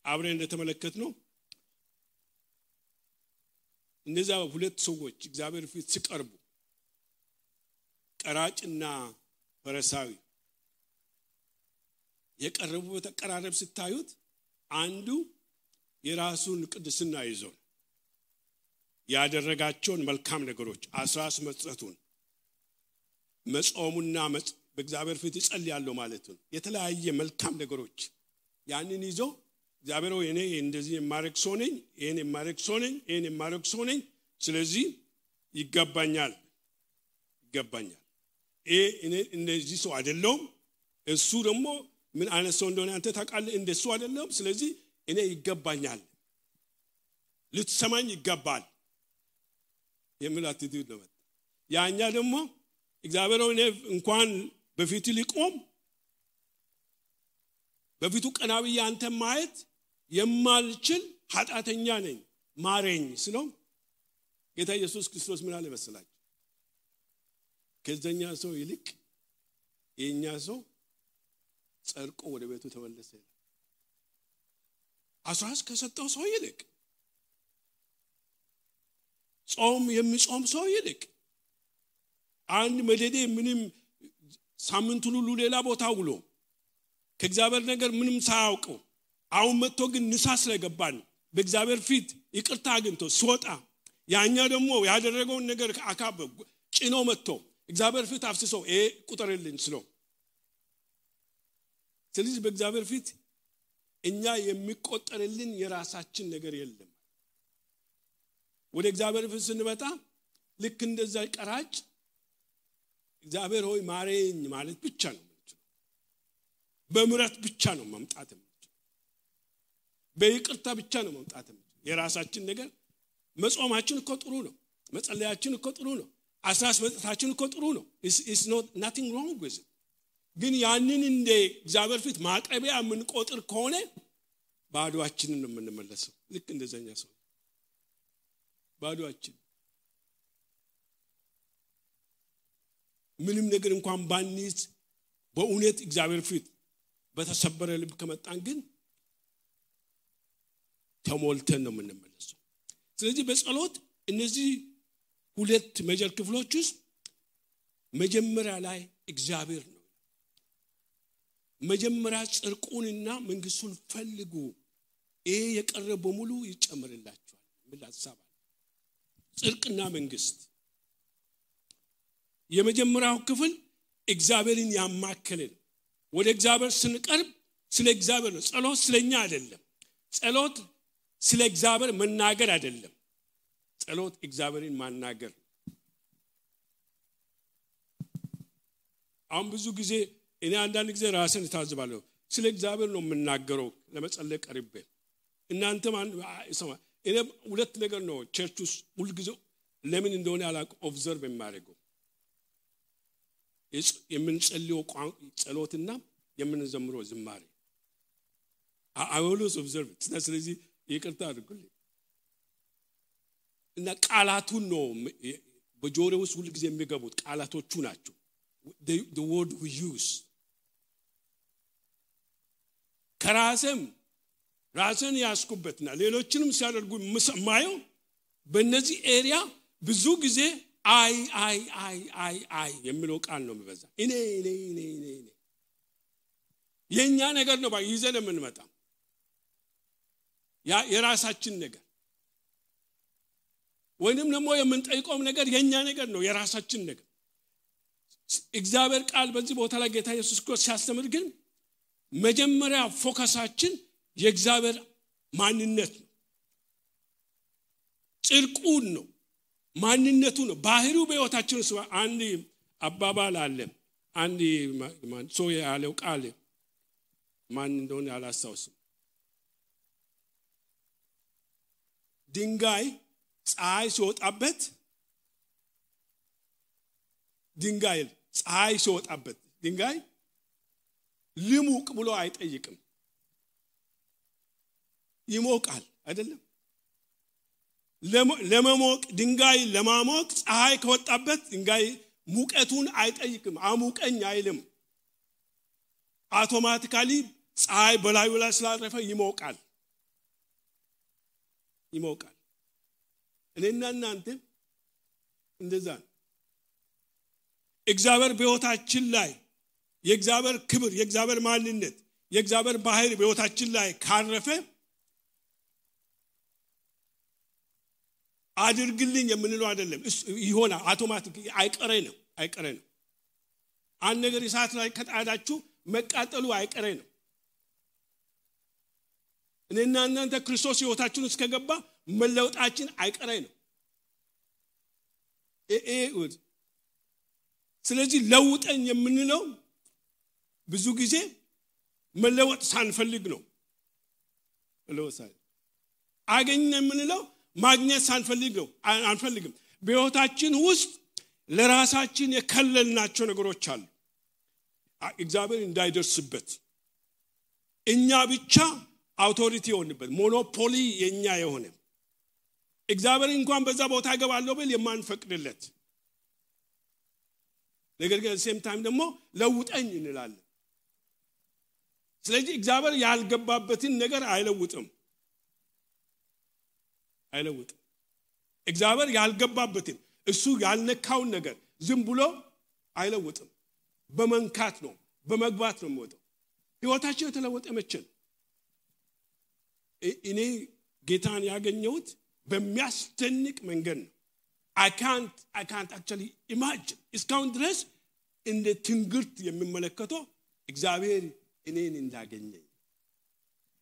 አብረን እንደተመለከትነው እነዛ ሁለት ሰዎች እግዚአብሔር ፊት ሲቀርቡ ቀራጭና ፈሪሳዊ የቀረቡበት አቀራረብ ስታዩት አንዱ የራሱን ቅድስና ይዞ ያደረጋቸውን መልካም ነገሮች አስራስ መስጠቱን መጾሙና በእግዚአብሔር ፊት ይጸልያለሁ ማለት ነው። የተለያየ መልካም ነገሮች ያንን ይዞ እግዚአብሔር ሆይ እኔ እንደዚህ የማረግ ሰው ነኝ፣ ይሄን የማረግ ሰው ነኝ፣ ይሄን የማረግ ሰው ነኝ፣ ስለዚህ ይገባኛል። እኔ እንደዚህ ሰው አይደለሁም፣ እሱ ደግሞ ምን አይነት ሰው እንደሆነ አንተ ታውቃለህ፣ እንደሱ አይደለም፣ ስለዚህ እኔ ይገባኛል፣ ልትሰማኝ ይገባል የሚል አቲቲዩድ ነው። ያኛ ደግሞ እግዚአብሔር ሆይ እኔ እንኳን በፊት ሊቆም በፊቱ ቀና ብዬ አንተ ማየት የማልችል ኃጢአተኛ ነኝ ማረኝ ስለው ጌታ ኢየሱስ ክርስቶስ ምን አለ መሰላችሁ? ከዘኛ ሰው ይልቅ የኛ ሰው ጸድቆ ወደ ቤቱ ተመለሰ። አስራስ ከሰጠው ሰው ይልቅ ጾም የሚጾም ሰው ይልቅ አንድ መደዴ ምንም ሳምንት ሁሉ ሌላ ቦታ ውሎ ከእግዚአብሔር ነገር ምንም ሳያውቀው አሁን መጥቶ ግን ንሳ ስለገባን በእግዚአብሔር ፊት ይቅርታ አግኝቶ ሲወጣ ያኛ ደግሞ ያደረገውን ነገር አካብ ጭኖ መጥቶ እግዚአብሔር ፊት አፍስሶ ቁጥርልኝ ስለው ስለዚህ በእግዚአብሔር ፊት እኛ የሚቆጠርልን የራሳችን ነገር የለም። ወደ እግዚአብሔር ፊት ስንመጣ ልክ እንደዛ ቀራጭ እግዚአብሔር ሆይ ማረኝ ማለት ብቻ ነው። በምህረት ብቻ ነው መምጣት የምንችለው። በይቅርታ ብቻ ነው መምጣት የምንችለው። የራሳችን ነገር መጾማችን እኮ ጥሩ ነው፣ መጸለያችን እኮ ጥሩ ነው፣ አስራስ መስጠታችን እኮ ጥሩ ነው። it's not nothing wrong with it። ግን ያንን እንደ እግዚአብሔር ፊት ማቅረቢያ የምንቆጥር ከሆነ ባዶአችንን ነው የምንመለሰው። ልክ እንደዛኛ ሰው ባዶአችን ምንም ነገር እንኳን ባንይዝ በእውነት እግዚአብሔር ፊት በተሰበረ ልብ ከመጣን ግን ተሞልተን ነው የምንመለሰው። ስለዚህ በጸሎት እነዚህ ሁለት ሜጀር ክፍሎች ውስጥ መጀመሪያ ላይ እግዚአብሔር ነው። መጀመሪያ ጽድቁንና መንግስቱን ፈልጉ፣ ይሄ የቀረበ በሙሉ ይጨመርላችኋል። ምን ሐሳብ አለ? ጽድቅና መንግስት የመጀመሪያው ክፍል እግዚአብሔርን ያማከለን። ወደ እግዚአብሔር ስንቀርብ ስለ እግዚአብሔር ነው። ጸሎት ስለኛ አይደለም። ጸሎት ስለ እግዚአብሔር መናገር አይደለም። ጸሎት እግዚአብሔርን ማናገር። አሁን ብዙ ጊዜ እኔ አንዳንድ ጊዜ ራስን ታዝባለሁ። ስለ እግዚአብሔር ነው የምናገረው ለመጸለይ ቀርቤ። እናንተም ሰማ እኔ ሁለት ነገር ነው ቸርች ውስጥ ሁሉ ጊዜ ለምን እንደሆነ አላውቅም ኦብዘርቭ የማደርገው የምንጸልየው ጸሎትና የምንዘምረው ዝማሬ I always observe it. ስለዚህ ይቅርታ አድርጉልኝ። እና ቃላቱን ነው በጆሮው ውስጥ ሁሉ ጊዜ የሚገቡት ቃላቶቹ ናቸው። The word we use ራስን ያስኩበትና ሌሎችንም ሲያደርጉ ማየው በእነዚህ ኤሪያ ብዙ ጊዜ አይ የሚለው ቃል ነው የሚበዛ። እኔ የኛ ነገር ነው ይዘን የምንመጣ የራሳችን ነገር ወይንም ደግሞ የምንጠይቀው ነገር የኛ ነገር ነው የራሳችን ነገር። እግዚአብሔር ቃል በዚህ ቦታ ላይ ጌታ ኢየሱስ ክርስቶስ ሲያስተምር ግን መጀመሪያ ፎከሳችን የእግዚአብሔር ማንነት ነው፣ ጽድቁን ነው፣ ማንነቱ ነው፣ ባህሪው በሕይወታችን ውስጥ። አንድ አባባል አለ። አንድ ሰው ያለው ቃል ማን እንደሆነ አላስታውስም። ድንጋይ ፀሐይ ሲወጣበት ድንጋይ ልሙቅ ብሎ አይጠይቅም። ይሞቃል አይደለም? ለመሞቅ ድንጋይ ለማሞቅ ፀሐይ ከወጣበት ድንጋይ ሙቀቱን አይጠይቅም፣ አሙቀኝ አይልም። አውቶማቲካሊ ፀሐይ በላዩ ላይ ስላረፈ ይሞቃል። እኔና እናንተ እንደዛ ነው። እግዚአብሔር በሕይወታችን ላይ የእግዚአብሔር ክብር፣ የእግዚአብሔር ማንነት፣ የእግዚአብሔር ባህሪ በሕይወታችን ላይ ካረፈ አድርግልኝ የምንለው አይደለም። ይሆናል አውቶማቲክ አይቀሬ ነው። አንድ ነገር እሳት ላይ ከጣዳችሁ መቃጠሉ አይቀሬ ነው። እኔና እናንተ ክርስቶስ ሕይወታችን ውስጥ ከገባ መለወጣችን አይቀሬ ነው። ስለዚህ ለውጠኝ የምንለው ብዙ ጊዜ መለወጥ ሳንፈልግ ነው። አገኘ የምንለው ማግኘት ሳንፈልግ ነው። አንፈልግም። በሕይወታችን ውስጥ ለራሳችን የከለልናቸው ነገሮች አሉ። እግዚአብሔር እንዳይደርስበት እኛ ብቻ አውቶሪቲ የሆንበት ሞኖፖሊ የኛ የሆነ እግዚአብሔር እንኳን በዛ ቦታ ገባለው ብል የማንፈቅድለት ነገር ግን ሴም ታይም ደግሞ ለውጠኝ እንላለን። ስለዚህ እግዚአብሔር ያልገባበትን ነገር አይለውጥም። እግዚአብሔር ያልገባበትን እሱ ያልነካውን ነገር ዝም ብሎ አይለውጥም። በመንካት ነው፣ በመግባት ነው የሚወጣው። ሕይወታችን የተለወጠ መቼ ነው? እኔ ጌታን ያገኘሁት በሚያስደንቅ መንገድ ነው። I can't actually imagine እስካሁን ድረስ እንደ ትንግርት የሚመለከተው እግዚአብሔር እኔን እንዳገኘኝ።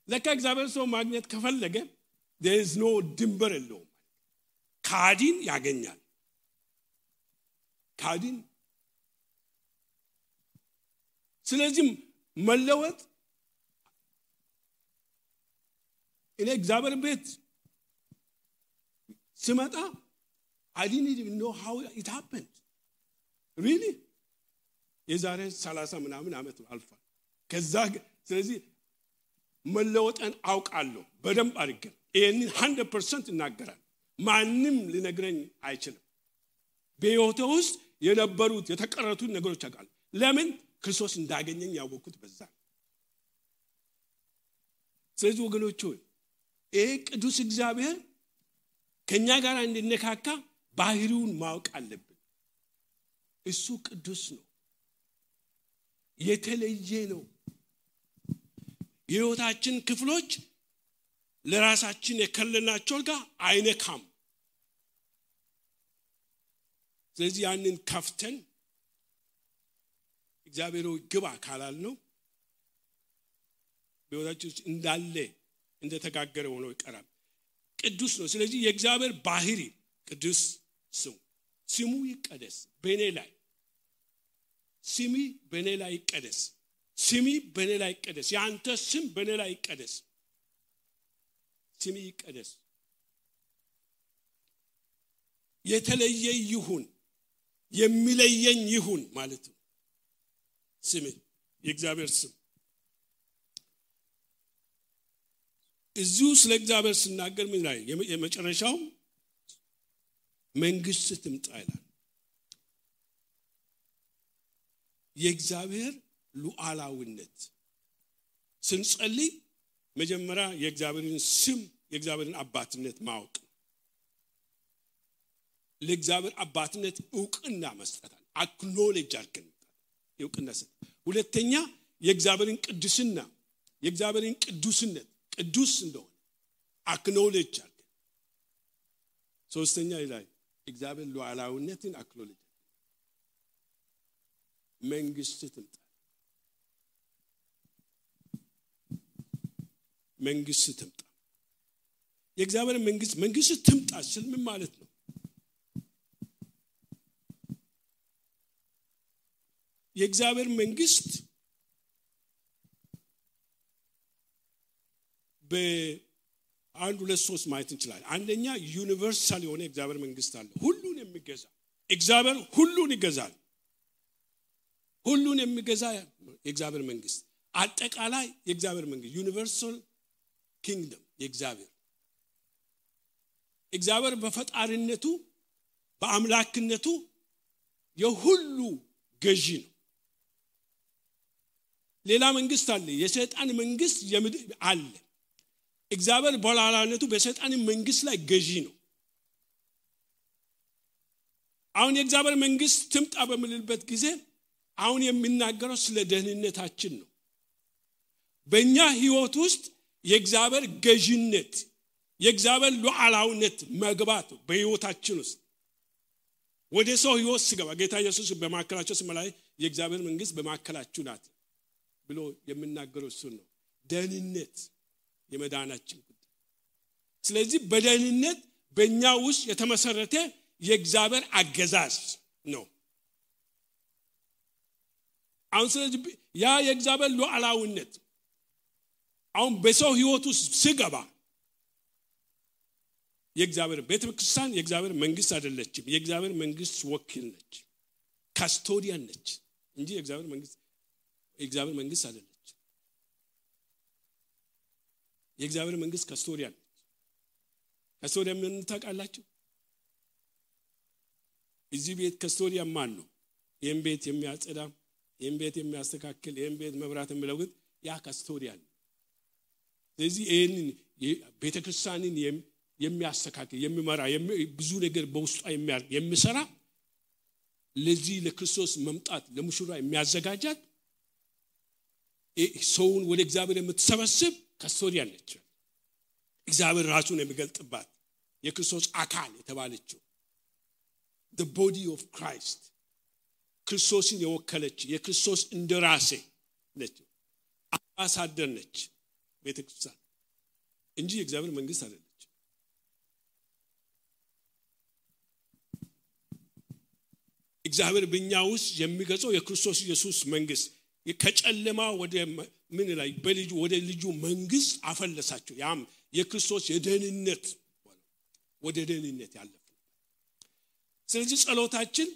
ለካ እግዚአብሔር ሰው ማግኘት ከፈለገ there is no ድንበር የለውም። ካዲን ያገኛል። ስለዚህ መለወጥ እኔ እግዚአብሔር ቤት ስመጣ I didn't even know how it happened. Really? የዛሬ 30 ምናምን ዓመት አልፏል። ከዛ ስለዚህ መለወጥን አውቃለሁ በደንብ አድርጌ ይሄንን 100% እናገራለሁ። ማንም ሊነግረኝ አይችልም። በሕይወቴ ውስጥ የነበሩት የተቀረቱት ነገሮች አውቃለሁ። ለምን? ክርስቶስ እንዳገኘኝ ያወቅኩት በዛ። ስለዚህ ወገኖች ሆይ ይሄ ቅዱስ እግዚአብሔር ከኛ ጋር እንድንነካካ ባህሪውን ማወቅ አለብን። እሱ ቅዱስ ነው፣ የተለየ ነው። የሕይወታችን ክፍሎች ለራሳችን የከለልናቸው ጋር አይነካም። ስለዚህ ያንን ከፍተን እግዚአብሔር ግባ ካላልነው በሕይወታችን እንዳለ እንደተጋገረ ሆኖ ይቀራል። ቅዱስ ነው። ስለዚህ የእግዚአብሔር ባህሪ ቅዱስ ስሙ ይቀደስ በእኔ ላይ፣ ስሚ በእኔ ላይ ይቀደስ፣ ስሚ በእኔ ላይ ይቀደስ፣ ያንተ ስም በእኔ ላይ ይቀደስ፣ ስሚ ይቀደስ፣ የተለየ ይሁን፣ የሚለየኝ ይሁን ማለት ነው። ስም የእግዚአብሔር ስም እዚሁ ስለ እግዚአብሔር ሲናገር ምን ላይ የመጨረሻው መንግስት ትምጣ ይላል። የእግዚአብሔር ሉዓላዊነት ስንጸልይ መጀመሪያ የእግዚአብሔርን ስም የእግዚአብሔርን አባትነት ማወቅ፣ ለእግዚአብሔር አባትነት ዕውቅና መስጠት፣ አክኖሌጅ አድርገን ዕውቅና ሰጥ። ሁለተኛ የእግዚአብሔርን ቅድስና የእግዚአብሔርን ቅዱስነት ቅዱስ እንደሆነ አክኖሌጅ አድርገን፣ ሶስተኛ ላይ እግዚአብሔር ሉዓላዊነትን አክኖሌጅ መንግስት ትምጣ መንግስት ትምጣ። የእግዚአብሔር መንግስት ትምጣ ስል ምን ማለት ነው? የእግዚአብሔር መንግስት በአንድ ሁለት ሶስት ማየት እንችላለን። አንደኛ ዩኒቨርሳል የሆነ የእግዚአብሔር መንግስት አለ፣ ሁሉን የሚገዛ እግዚአብሔር ሁሉን ይገዛል። ሁሉን የሚገዛ የእግዚአብሔር መንግስት አጠቃላይ የእግዚአብሔር መንግስት ዩኒቨርሳል ኪንግደም እግዚአብሔር በፈጣሪነቱ በአምላክነቱ የሁሉ ገዢ ነው። ሌላ መንግስት አለ፣ የሰይጣን መንግስት አለ። እግዚአብሔር በላላነቱ በሰይጣን መንግስት ላይ ገዢ ነው። አሁን የእግዚአብሔር መንግስት ትምጣ በምንልበት ጊዜ አሁን የሚናገረው ስለ ደህንነታችን ነው። በእኛ ህይወት ውስጥ የእግዚአብሔር ገዢነት የእግዚአብሔር ሉዓላዊነት መግባት በህይወታችን ውስጥ ወደ ሰው ህይወት ሲገባ ጌታ ኢየሱስ በማከላቸው ሲመላይ የእግዚአብሔር መንግስት በማከላችሁ ናት ብሎ የሚናገረው እሱ ነው። ደህንነት የመዳናችን ጉዳይ። ስለዚህ በደህንነት በእኛ ውስጥ የተመሰረተ የእግዚአብሔር አገዛዝ ነው። አሁን ስለዚህ ያ የእግዚአብሔር ሉዓላዊነት አሁን በሰው ህይወት ውስጥ ሲገባ የእግዚአብሔር ቤተክርስቲያን የእግዚአብሔር መንግስት አይደለችም። የእግዚአብሔር መንግስት ወኪል ነች፣ ካስቶዲያን ነች እንጂ የእግዚአብሔር መንግስት አይደለች። የእግዚአብሔር መንግስት ካስቶዲያን ነች። ካስቶዲያን ምን ታውቃላችሁ? እዚህ ቤት ካስቶዲያን ማን ነው? ይህን ቤት የሚያጸዳ፣ ይህን ቤት የሚያስተካክል፣ ይህን ቤት መብራት የሚለውጥ ያ ካስቶዲያን ነው። ስለዚህ ይህንን ቤተክርስቲያንን የሚያስተካክል የሚመራ ብዙ ነገር በውስጧ የሚሰራ ለዚህ ለክርስቶስ መምጣት ለሙሽራ የሚያዘጋጃት ሰውን ወደ እግዚአብሔር የምትሰበስብ ካስቶዲያን ነች። እግዚአብሔር ራሱን የሚገልጥባት የክርስቶስ አካል የተባለችው the body of Christ ክርስቶስን የወከለች የክርስቶስ እንደራሴ ነች፣ አምባሳደር ነች ቤተክርስቲያን እንጂ የእግዚአብሔር መንግስት አይደለች። እግዚአብሔር በእኛ ውስጥ የሚገዛው የክርስቶስ ኢየሱስ መንግስት ከጨለማ ወደ ምን ላይ በልጁ ወደ ልጁ መንግስት አፈለሳቸው። ያም የክርስቶስ የደህንነት ወደ ደህንነት ያለፈ። ስለዚህ ጸሎታችን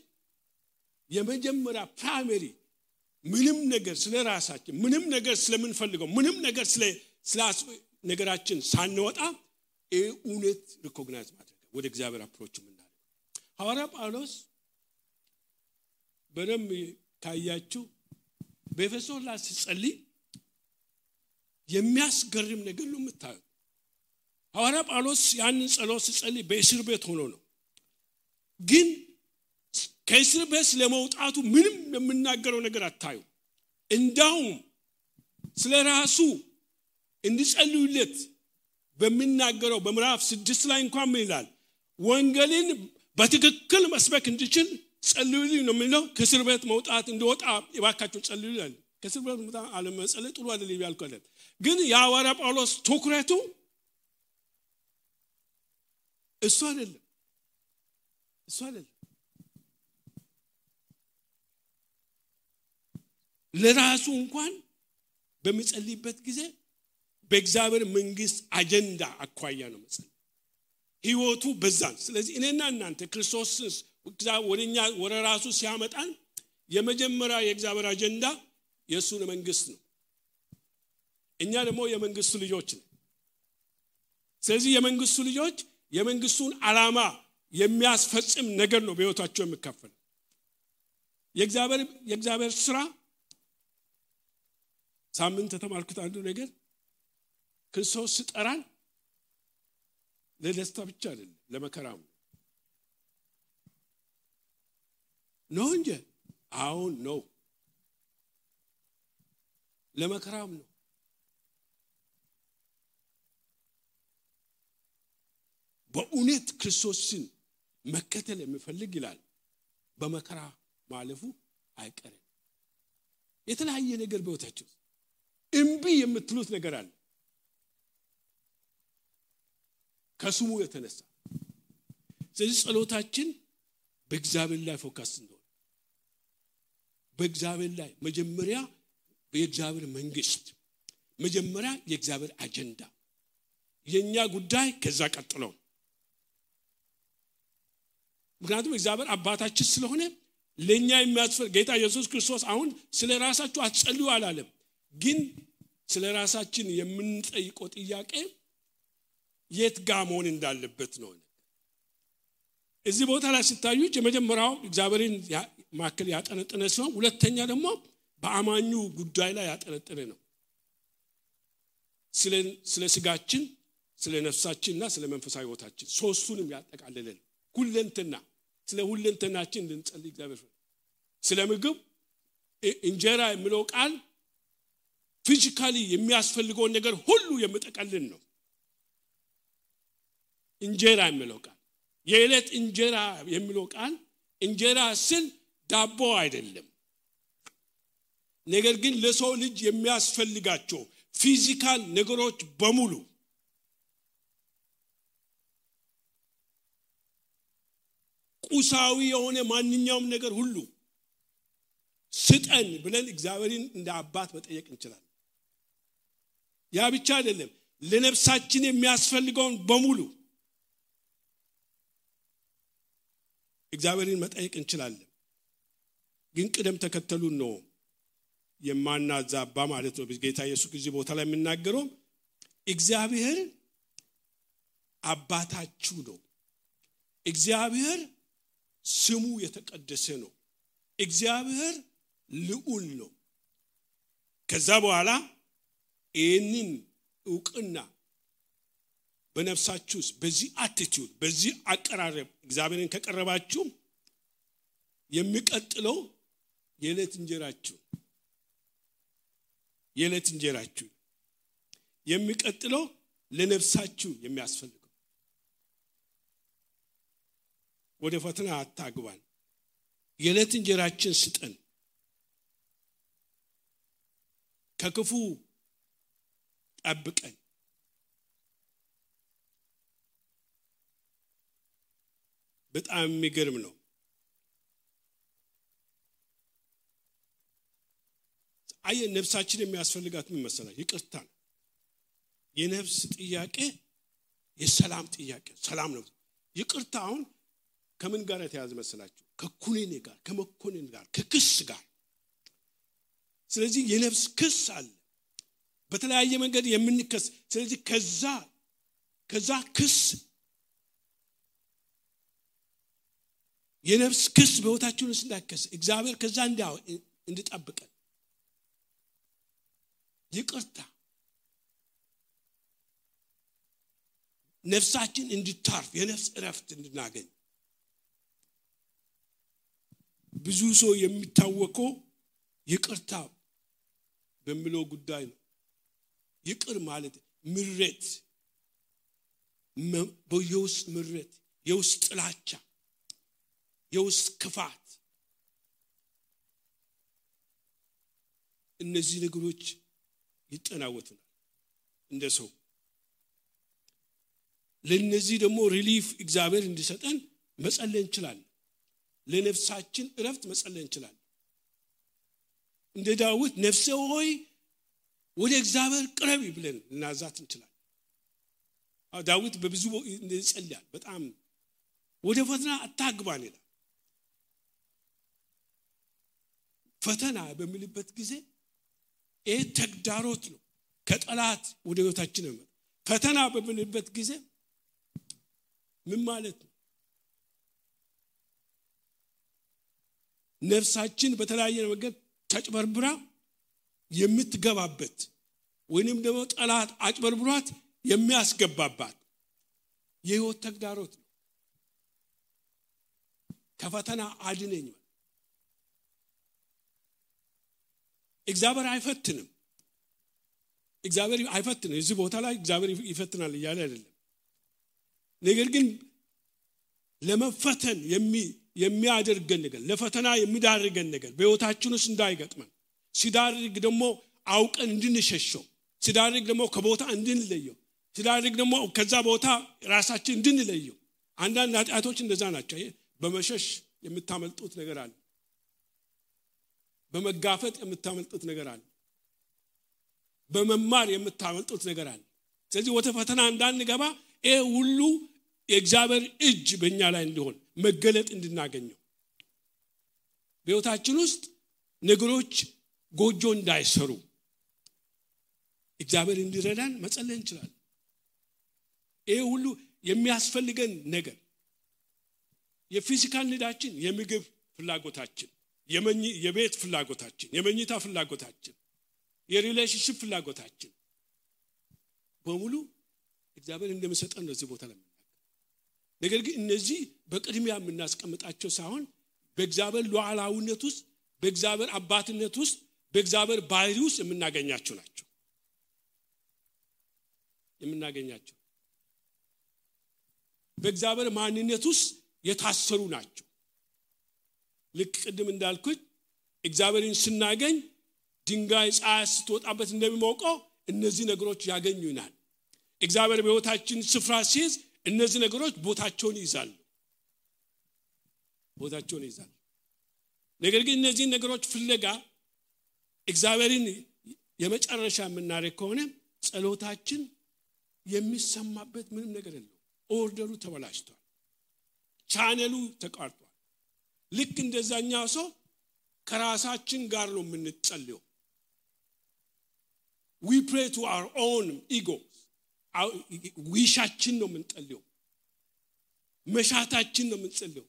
የመጀመሪያ ፕራይመሪ ምንም ነገር ስለራሳችን ምንም ነገር ስለምንፈልገው ምንም ነገር ስለ ነገራችን ሳንወጣ እውነት ሪኮግናይዝ ማድረግ ወደ እግዚአብሔር አፕሮች ምናደርግ። ሐዋርያ ጳውሎስ በደም ካያችሁ በኤፌሶን ላይ ሲጸልይ የሚያስገርም ነገር ነው የምታዩት። ሐዋርያ ጳውሎስ ያንን ጸሎት ሲጸልይ በእስር ቤት ሆኖ ነው። ግን ከእስር ቤት ለመውጣቱ ምንም የምናገረው ነገር አታዩ እንዳውም ስለራሱ እንዲጸልዩለት በሚናገረው በምዕራፍ 6 ላይ እንኳን ምን ይላል ወንጌልን በትክክል መስበክ እንዲችል ጸልዩልኝ ነው የሚለው ከእስር ቤት መውጣት እንዲወጣ ይባካችሁ ጸልዩልኝ ከእስር ቤት መውጣት አለመጸለይ ጥሩ አይደለም ያልከለ ግን የሐዋርያ ጳውሎስ ትኩረቱ እሱ አይደለም ለራሱ እንኳን በሚጸልይበት ጊዜ በእግዚአብሔር መንግስት አጀንዳ አኳያ ነው መጸለይ ህይወቱ በዛን ስለዚህ እኔና እናንተ ክርስቶስ ወደኛ ወደ ራሱ ሲያመጣን የመጀመሪያ የእግዚአብሔር አጀንዳ የሱን መንግስት ነው እኛ ደግሞ የመንግስቱ ልጆች ነን ስለዚህ የመንግስቱ ልጆች የመንግስቱን ዓላማ የሚያስፈጽም ነገር ነው በህይወታቸው የሚካፈል የእግዚአብሔር ስራ ሳምንት ተማርኩት አንዱ ነገር ክርስቶስ ሲጠራን ለደስታ ብቻ አይደለም ለመከራም ነው እንጂ አሁን ነው ለመከራም ነው በእውነት ክርስቶስን መከተል የሚፈልግ ይላል በመከራ ማለፉ አይቀርም የተለያየ ነገር በህይወታችሁ እምቢ የምትሉት ነገር አለ ከስሙ የተነሳ ስለዚህ ጸሎታችን በእግዚአብሔር ላይ ፎከስ ነው በእግዚአብሔር ላይ መጀመሪያ በእግዚአብሔር መንግስት መጀመሪያ የእግዚአብሔር አጀንዳ የኛ ጉዳይ ከዛ ቀጥሎ ምክንያቱም እግዚአብሔር አባታችን ስለሆነ ለኛ የሚያስፈልግ ጌታ ኢየሱስ ክርስቶስ አሁን ስለራሳችሁ አትጸልዩ አላለም ግን ስለራሳችን የምንጠይቀው ጥያቄ የት ጋር መሆን እንዳለበት ነው እዚህ ቦታ ላይ ሲታዩት የመጀመሪያው እግዚአብሔርን ማከል ያጠነጠነ ሲሆን ሁለተኛ ደግሞ በአማኙ ጉዳይ ላይ ያጠነጠነ ነው ስለ ስጋችን ስለ ነፍሳችንና ስለ መንፈሳዊ ህይወታችን ሶስቱንም ያጠቃልላል ሁለንተና ስለ ሁለንተናችን እንድንጸልይ እግዚአብሔር ስለ ምግብ እንጀራ የሚለው ቃል ፊዚካሊ የሚያስፈልገው ነገር ሁሉ የሚጠቀልል ነው እንጀራ የሚለው ቃል የዕለት እንጀራ የሚለው ቃል እንጀራ ስል ዳቦ አይደለም ነገር ግን ለሰው ልጅ የሚያስፈልጋቸው ፊዚካል ነገሮች በሙሉ ቁሳዊ የሆነ ማንኛውም ነገር ሁሉ ስጠን ብለን እግዚአብሔርን እንደ አባት መጠየቅ እንችላለን ያ ብቻ አይደለም ለነፍሳችን የሚያስፈልገውን በሙሉ እግዚአብሔርን መጠየቅ እንችላለን ግን ቅደም ተከተሉን ነው የማናዛባ ማለት ነው ጌታ ኢየሱስ እዚህ ቦታ ላይ የሚናገረው እግዚአብሔር አባታችሁ ነው እግዚአብሔር ስሙ የተቀደሰ ነው እግዚአብሔር ልዑል ነው ከዛ በኋላ ይህንን ዕውቅና በነፍሳችሁ በዚህ አቲቲዩድ በዚህ አቀራረብ እግዚአብሔርን ከቀረባችሁ የሚቀጥለው የዕለት እንጀራችሁ የሚቀጥለው ለነፍሳችሁ የሚያስፈልገው ወደ ፈተና አታግባን የዕለት እንጀራችን ስጠን ከክፉ ጠብቀን በጣም የሚገርም ነው ነፍሳችን የሚያስፈልጋት ምን መሰላችሁ ይቅርታ የነፍስ ጥያቄ የሰላም ጥያቄ ሰላም ነው ይቅርታ አሁን ከምን ጋር የተያዘ መሰላችሁ ከኩነኔ ጋር ከመኮነን ጋር ከክስ ጋር ስለዚህ የነፍስ ክስ አለ በተለያየ መንገድ የምንከስ ስለዚህ ከዛ ክስ የነፍስ ክስ በህይወታችን ውስጥ እንዳይከስ እግዚአብሔር ከዛ እንዲጠብቀን ይቅርታ ነፍሳችን እንድታርፍ የነፍስ እረፍት እንድናገኝ ብዙ ሰው የሚታወቀው ይቅርታ በሚለው ጉዳይ ነው። ይቅር ማለት ምሕረት፣ የውስጥ ምሕረት፣ የውስጥ ጥላቻ፣ የውስጥ ክፋት፣ እነዚህ ነገሮች ይጠናወቱናል እንደ ሰው። ለነዚህ ደግሞ ሪሊፍ እግዚአብሔር እንዲሰጠን መጸለይ እንችላለን። ለነፍሳችን እረፍት መጸለይ እንችላለን። እንደ ዳዊት ነፍሴ ሆይ ወደ እግዚአብሔር ቅረቢ ብለን እናዛት እንችላለን። ዳዊት በብዙ ይጸልያል። በጣም ወደ ፈተና አታግባን ይላል። ፈተና በሚልበት ጊዜ ይሄ ተግዳሮት ነው፣ ከጠላት ወደ ህይወታችን ነው። ፈተና በሚልበት ጊዜ ምን ማለት ነው? ነፍሳችን በተለያየ ነገር ተጭበርብራ የምትገባበት ወይንም ደግሞ ጠላት አጭበርብሯት የሚያስገባባት የህይወት ተግዳሮት ነው። ከፈተና አድነኝ። እግዚአብሔር አይፈትንም። እግዚአብሔር አይፈትንም። እዚህ ቦታ ላይ እግዚአብሔር ይፈትናል እያለ አይደለም። ነገር ግን ለመፈተን የሚያደርገን ነገር፣ ለፈተና የሚዳርገን ነገር በህይወታችን ውስጥ እንዳይገጥመን፣ ሲዳርግ ደግሞ አውቀን እንድንሸሸው፣ ሲዳርግ ደግሞ ከቦታ እንድንለየው፣ ሲዳርግ ደግሞ ከዛ ቦታ ራሳችን እንድንለየው። አንዳንድ ኃጢአቶች እንደዛ ናቸው። በመሸሽ የምታመልጡት ነገር አለ። በመጋፈጥ የምታመልጡት ነገር አለ። በመማር የምታመልጡት ነገር አለ። ስለዚህ ወደ ፈተና እንዳንገባ ይሄ ሁሉ የእግዚአብሔር እጅ በእኛ ላይ እንዲሆን መገለጥ እንድናገኘው፣ በህይወታችን ውስጥ ነገሮች ጎጆ እንዳይሰሩ እግዚአብሔር እንዲረዳን መጸለይ እንችላለን። ይሄ ሁሉ የሚያስፈልገን ነገር የፊዚካል ኒዳችን፣ የምግብ ፍላጎታችን፣ የቤት ፍላጎታችን፣ የመኝታ ፍላጎታችን፣ የሪሌሽንሺፕ ፍላጎታችን በሙሉ እግዚአብሔር እንደሚሰጠን ነው እዚህ ቦታ ላይ። ነገር ግን እነዚህ በቅድሚያ የምናስቀምጣቸው ሳይሆን በእግዚአብሔር ሉዓላዊነት ውስጥ፣ በእግዚአብሔር አባትነት ውስጥ፣ በእግዚአብሔር ባህሪ ውስጥ የምናገኛቸው ናቸው። የምናገኛቸው በእግዚአብሔር ማንነት ውስጥ የታሰሩ ናቸው። ልክ ቅድም እንዳልኩት እግዚአብሔርን ስናገኝ ድንጋይ ፀሐይ ስትወጣበት እንደሚሞቀው እነዚህ ነገሮች ያገኙናል። እግዚአብሔር በህይወታችን ስፍራ ሲይዝ እነዚህ ነገሮች ቦታቸውን ይይዛሉ። ነገር ግን እነዚህ ነገሮች ፍለጋ እግዚአብሔርን የመጨረሻ የምናደርግ ከሆነ ጸሎታችን የሚሰማበት ምንም ነገር የለም። ኦርደሩ ተበላሽቷል። ቻነሉ ተቋርጧል። ልክ እንደዛኛው ሰው ከራሳችን ጋር ነው የምንጸልየው። we pray to our own ego. ዊሻችን ነው የምንጸልየው፣ መሻታችን ነው የምንጸልየው።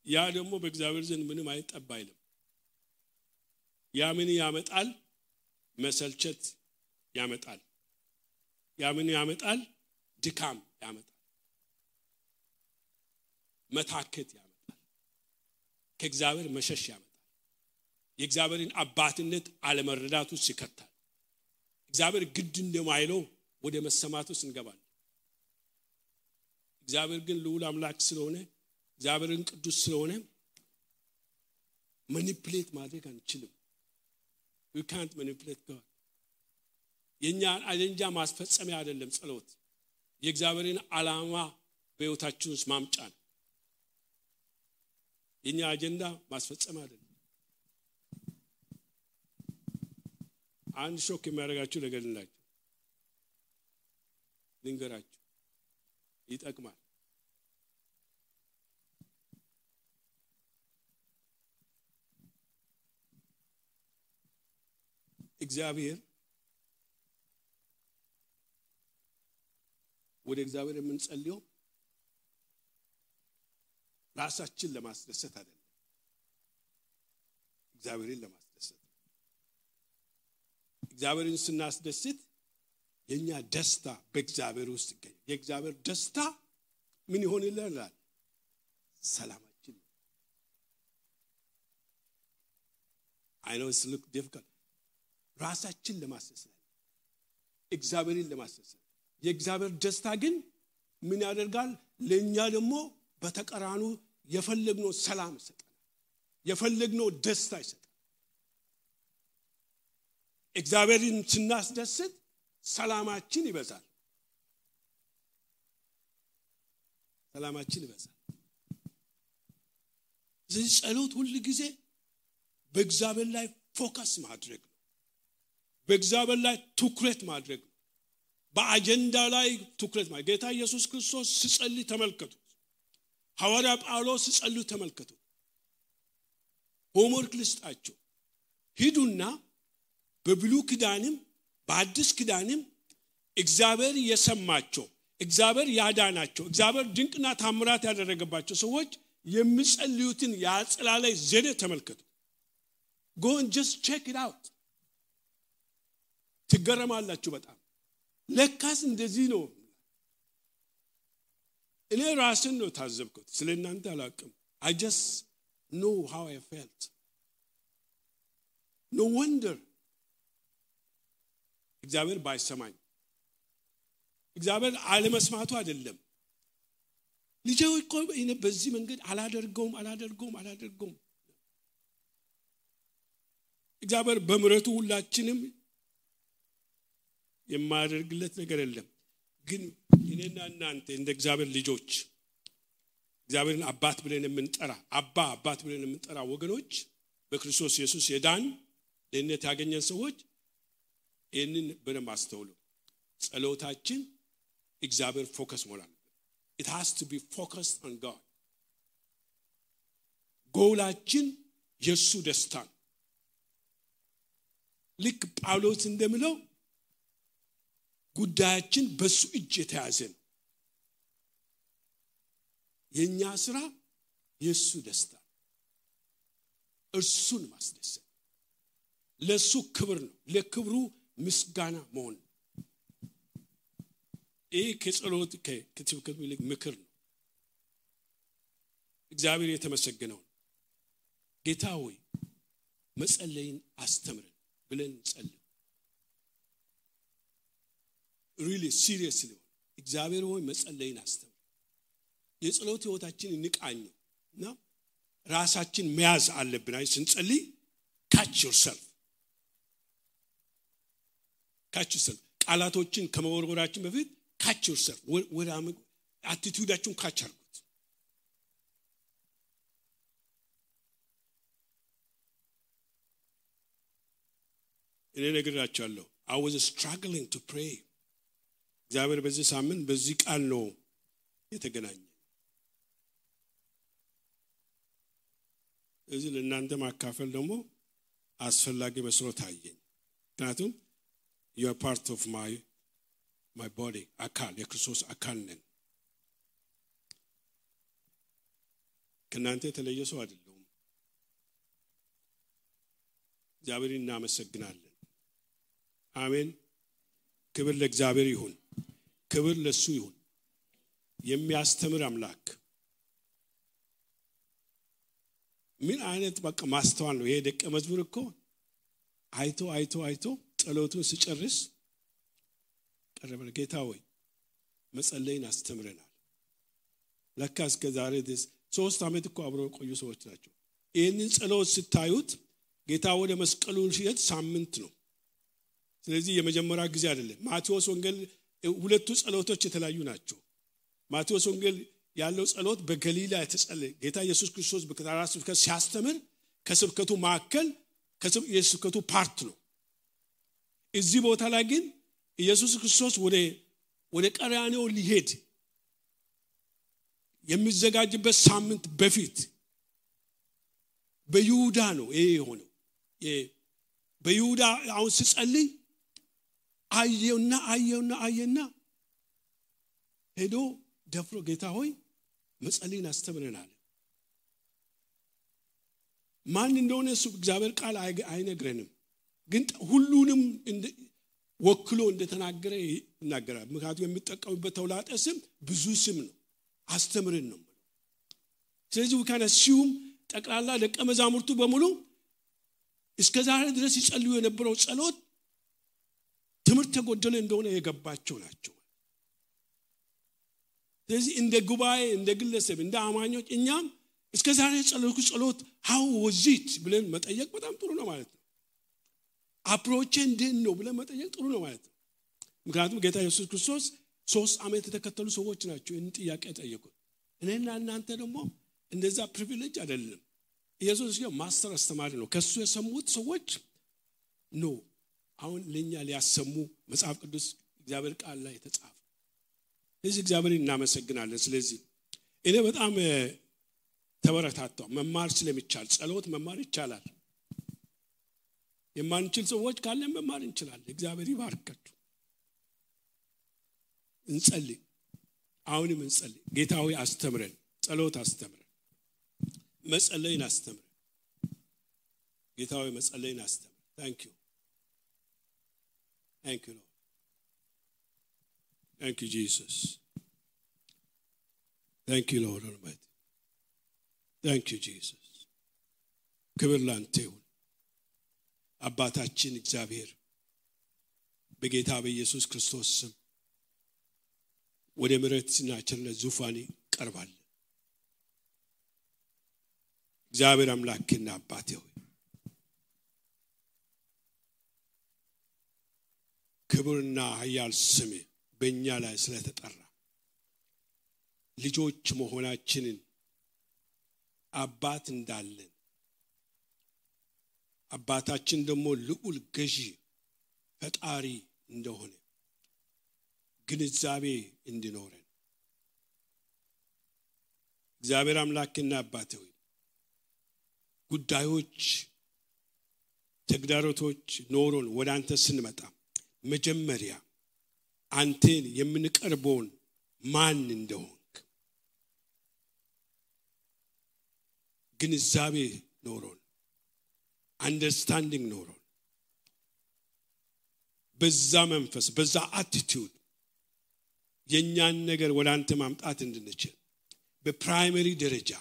ያ ደግሞ በእግዚአብሔር ዘንድ ምንም አይጠባ አይልም። ያ ምን ያመጣል? መሰልቸት ያመጣል። ያ ምን ያመጣል? ድካም ያመጣል፣ መታከት ያመጣል፣ ከእግዚአብሔር መሸሽ ያመጣል፣ የእግዚአብሔርን አባትነት አለመረዳት ውስጥ ይከታል። እግዚአብሔር ግድ እንደማይለው ወደ መሰማት ውስጥ እንገባለን። እግዚአብሔር ግን ልዑል አምላክ ስለሆነ፣ እግዚአብሔርን ቅዱስ ስለሆነ ማኒፕሌት ማድረግ አንችልም። we can't manipulate God. የኛን አጀንዳ ማስፈጸሚያ አይደለም ጸሎት። የእግዚአብሔርን ዓላማ በህይወታችን ውስጥ ማምጫ ነው። የኛ አጀንዳ ማስፈጸም አይደለም። አንድ ሾክ የሚያደርጋችሁ ነገር ልንገራችሁ፣ ይጠቅማል። እግዚአብሔር ወደ እግዚአብሔር የምንጸልየው ራሳችን ለማስደሰት አይደለም፣ እግዚአብሔርን ለማስደሰት። እግዚአብሔርን ስናስደስት የኛ ደስታ በእግዚአብሔር ውስጥ ይገኛል። የእግዚአብሔር ደስታ ምን ይሆንልናል? ሰላማችን I know it's look difficult ራሳችን ለማሰሰል እግዚአብሔርን ለማሰሰል የእግዚአብሔር ደስታ ግን ምን ያደርጋል ለኛ ደግሞ በተቀራኑ የፈለግነው ሰላም ይሰጣል የፈለግነው ደስታ ይሰጣል እግዚአብሔርን ስናስደስት ሰላማችን ይበዛል ሰላማችን ይበዛል ስለዚህ ጸሎት ሁሉ ጊዜ በእግዚአብሔር ላይ ፎከስ ማድረግ ነው በእግዚአብሔር ላይ ትኩረት ማድረግ ነው በአጀንዳ ላይ ትኩረት ማድረግ ጌታ ኢየሱስ ክርስቶስ ሲጸልይ ተመልከቱ ሐዋርያ ጳውሎስ ሲጸልይ ተመልከቱ ሆምወርክ ልስጣቸው ሂዱና በብሉይ ኪዳንም በአዲስ ኪዳንም እግዚአብሔር የሰማቸው እግዚአብሔር ያዳናቸው እግዚአብሔር ድንቅና ታምራት ያደረገባቸው ሰዎች የሚጸልዩትን ያጸላለይ ዘዴ ተመልከቱ go and just check it out ትገረማላችሁ በጣም ለካስ እንደዚህ ነው እኔ ራስን ነው ታዘብኩት ስለናንተ አላቅም I just know how I felt no wonder እግዚአብሔር ባይሰማኝ እግዚአብሔር አለመስማቱ አይደለም ልጄው እኮ እኔ በዚህ መንገድ አላደርገውም እግዚአብሔር በምሕረቱ ሁላችንም የማያደርግለት ነገር የለም ግን እኔና እናንተ እንደ እግዚአብሔር ልጆች እግዚአብሔርን አባት ብለን የምንጠራ ወገኖች በክርስቶስ ኢየሱስ የዳን ለእነት ያገኘን ሰዎች ይህንን በደንብ አስተውሉ ጸሎታችን እግዚአብሔር ፎከስ ሞላል it has to be focused on God ጎላችን የሱ ደስታ ልክ ጳውሎስ እንደሚለው ጉዳያችን በሱ እጅ የተያዘ የኛ ስራ የሱ ደስታ እርሱን ማስደሰት ለሱ ክብር ነው ለክብሩ ምስጋና መሆን ከጸሎት ከትብከት ይልቅ ምክር ነው እግዚአብሔር የተመሰገነው ጌታ ሆይ መጸለይን አስተምረን ብለን ጸልይ really seriously እግዚአብሔር ሆይ መጸለይን አስተምረን የጸሎት ህይወታችን እንቃኝና ራሳችን መያዝ አለብን አይ ስንጸልይ catch yourself ቃላቶችን ከመወርወራችን በፊት catch yourself ወደ አቲቲዩዳችሁን catch አድርጉት እኔ ነግራችኋለሁ I was struggling to pray እግዚአብሔር በዚህ ሳምንት በዚህ ቃል ነው የተገናኘ እዚህ ለእናንተ ማካፈል ደግሞ አስፈላጊ መስሎ ታየኝ ምክንያቱም you are part of my body አካል የክርስቶስ አካል ነን ከእናንተ የተለየ ሰው አይደለም እግዚአብሔርን እናመሰግናለን አሜን ክብር ለእግዚአብሔር ይሁን ክብር ለሱ ይሁን የሚያስተምር አምላክ ምን አይነት በቃ ማስተዋል ነው ይሄ ደቀ መዝሙር እኮ አይቶ ጸሎቱን ሲጨርስ ቀረበ ጌታ ሆይ መጸለይን አስተምረናል ለካ እስከ ዛሬ ድረስ 3 አመት እኮ አብረው ቆዩ ሰዎች ናቸው ይሄንን ጸሎት ስታዩት ጌታ ወደ መስቀሉ ሲሄድ ሳምንት ነው ስለዚህ የመጀመሪያ ጊዜ አይደለም ማቴዎስ ወንጌል ሁለቱ ጸሎቶች የተለያዩ ናቸው ማቴዎስ ወንጌል ያለው ጸሎት በገሊላ የተጸለየ ጌታ ኢየሱስ ክርስቶስ በከተራራ ስብከት ሲያስተምር ከስብከቱ ማዕከል የስብከቱ ፓርት ነው እዚህ ቦታ ላይ ግን ኢየሱስ ክርስቶስ ወደ ቀራንዮ ሊሄድ የሚዘጋጅበት ሳምንት በፊት በይሁዳ ነው ይሄ ሆነው በይሁዳ አሁን ሲጸልይ አየውና ሄዶ ደፍሮ ጌታ ሆይ መጸለይን አስተምረናል ማን እንደሆነ እሱ እግዚአብሔር ቃል አይነግረንም ግን ሁሉንም ወክሎ እንደተናገረ ይናገራል ምክንያቱም የሚጠቀሙበት ተውላጠ ስም ብዙ ስም ነው አስተምረን ነው ስለዚህ we can assume ጠቅላላ ደቀ መዛሙርቱ በሙሉ እስከዛሬ ድረስ ይጸልዩ የነበረው ጸሎት ትምህርት ተጎደለ እንደሆነ የገባቸው ናቸው። ስለዚህ እንደ ጉባኤ እንደ ግለሰብ እንደ አማኞች እኛም እስከዛሬ ጸለይኩ ጸሎት how was it ብለን መጠየቅ በጣም ጥሩ ነው ማለት ነው። አፕሮች እንዴት ነው ብለን መጠየቅ ጥሩ ነው ማለት ነው። ምክንያቱም ጌታ ኢየሱስ ክርስቶስ 3 ዓመት የተከተሉ ሰዎች ናቸው ይህን ጥያቄ ጠየቁት። እኔና እናንተ ደግሞ እንደዛ ፕሪቪሌጅ አይደለም። ኢየሱስ ማስተር አስተማሪ ነው። ከሱ የሰሙት ሰዎች ነው አሁን ለኛ ሊያሰሙ መጽሐፍ ቅዱስ እግዚአብሔር ቃል ላይ ተጻፈ። ስለዚህ እግዚአብሔርን እናመሰግናለን። ስለዚህ እኔ በጣም ተበረታታው መማር ስለሚቻል ጸሎት መማር ይቻላል። የማንችል ሰዎች ካለን መማር እንችላለን። እግዚአብሔር ይባርካችሁ። እንጸልይ። አሁንም እንጸልይ። ጌታ ሆይ አስተምረን፣ ጸሎት አስተምረን፣ መጸለይን አስተምረን። ጌታ ሆይ መጸለይን አስተምረን። Thank you. Thank you, Lord. Thank you, Jesus. Thank you, Lord Almighty. Thank you, Jesus. ክብር ላንተ ይሁን። አባታችን እግዚአብሔር በጌታ በኢየሱስ ክርስቶስ ስም ወደ ምሕረትና ቸርነት ዙፋን ቀርባል። እግዚአብሔር አምላክና አባቴ ሆይ ክብርና ኃያል ስም በእኛ ላይ ስለተጠራ ልጆች መሆናችንን አባት እንዳለን አባታችን ደግሞ ልዑል ገዢ ፈጣሪ እንደሆነ ግንዛቤ እንዲኖረን እግዚአብሔር አምላክና አባቴ ሆይ ጉዳዮች ተግዳሮቶች ኖሮን ወደ አንተ ስንመጣ መጀመሪያ አንተን የምንቀርበውን ማን እንደሆንክ ግንዛቤ ኖሮን አንደርስታንዲንግ ኖሮን በዛ መንፈስ በዛ አቲቲዩድ የኛን ነገር ወደ አንተ ማምጣት እንድንችል በፕራይመሪ ደረጃ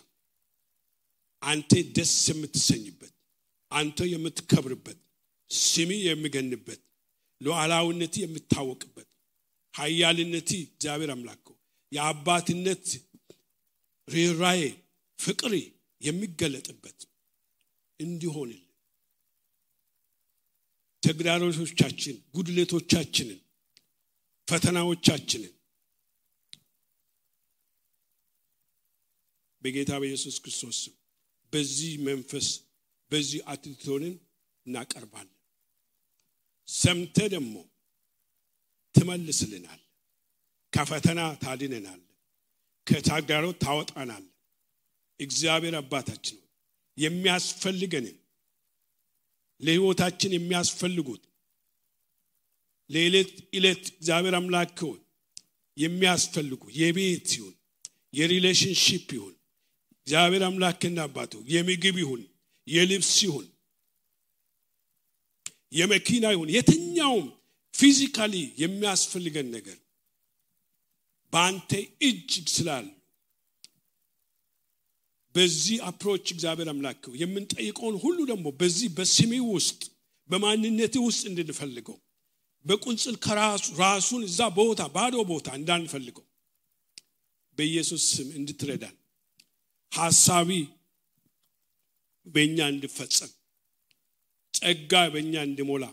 አንተ ደስ የምትሰኝበት አንተ የምትከብርበት ስሚ የሚገንበት ሉዓላዊነት የምታወቅበት ኃያልነት እግዚአብሔር አምላክ የአባትነት ርኅራኄ ፍቅር የሚገለጥበት እንዲሆንልን ተግዳሮቶቻችን ጉድለቶቻችንን ፈተናዎቻችንን በጌታ በኢየሱስ ክርስቶስ በዚህ መንፈስ በዚህ አትቶንን እናቀርባለን። ሰምተ ደግሞ ትመልስልናል። ከፈተና ታድነናል። ከተግዳሮት ታወጣናል። እግዚአብሔር አባታችን የሚያስፈልገን ለሕይወታችን የሚያስፈልጉት ለዕለት ዕለት እግዚአብሔር አምላክ የሚያስፈልጉ የቤት ይሁን የሪሌሽንሺፕ ይሁን እግዚአብሔር አምላክና አባቱ የምግብ ይሁን የልብስ ይሁን የመኪና ይሁን የትኛውም ፊዚካሊ የሚያስፈልገን ነገር በአንተ እጅ ስላለ በዚህ አፕሮች እግዚአብሔር አምላክ የምንጠይቀውን ሁሉ ደግሞ በዚህ በስሜ ውስጥ በማንነቴ ውስጥ እንድንፈልገው በቁንጽል ራሱን እዛ ቦታ ባዶ ቦታ እንዳንፈልገው በኢየሱስ ስም እንድትረዳን ሐሳቢ በእኛ እንድፈጸም ጸጋ በእኛ እንድሞላ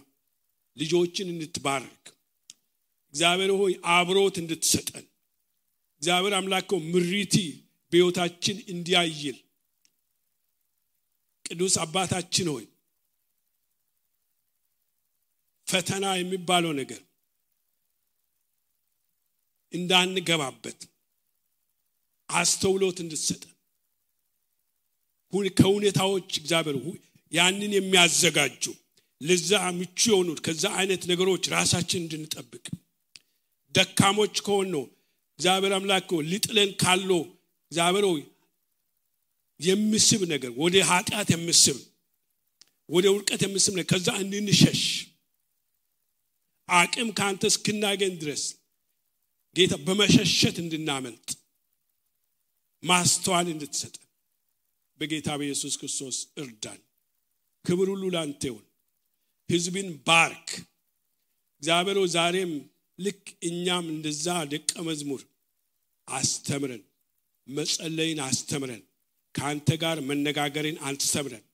ልጆችን እንድትባርክ እግዚአብሔር ሆይ አብሮት እንድትሰጠን እግዚአብሔር አምላክ ምሪቲ በሕይወታችን እንዲያይል ቅዱስ አባታችን ሆይ ፈተና የሚባለው ነገር እንዳንገባበት አስተውሎት እንድትሰጠን ከሁኔታዎች እግዚአብሔር ያንን የሚያዘጋጁ ለዛ ምቹ የሆኑት ከዛ አይነት ነገሮች ራሳችን እንድንጠብቅ ደካሞች ከሆነው እግዚአብሔር አምላክ ሊጥለን ካለው እግዚአብሔር ሆይ የሚስብ ነገር ወደ ኃጢአት የሚስብ ወደ ውድቀት የሚስብ ነገር ከዛ እንድንሸሽ አቅም ካንተ እስክናገኝ ድረስ ጌታ በመሸሸት እንድናመልጥ ማስተዋል እንድትሰጠን በጌታ በኢየሱስ ክርስቶስ እርዳን። ክብር ሁሉ ላንተ ይሁን። ሕዝብን ባርክ እግዚአብሔር። ዛሬም ልክ እኛም እንደዛ ደቀ መዝሙር አስተምረን፣ መጸለይን አስተምረን፣ ካንተ ጋር መነጋገርን አስተምረን።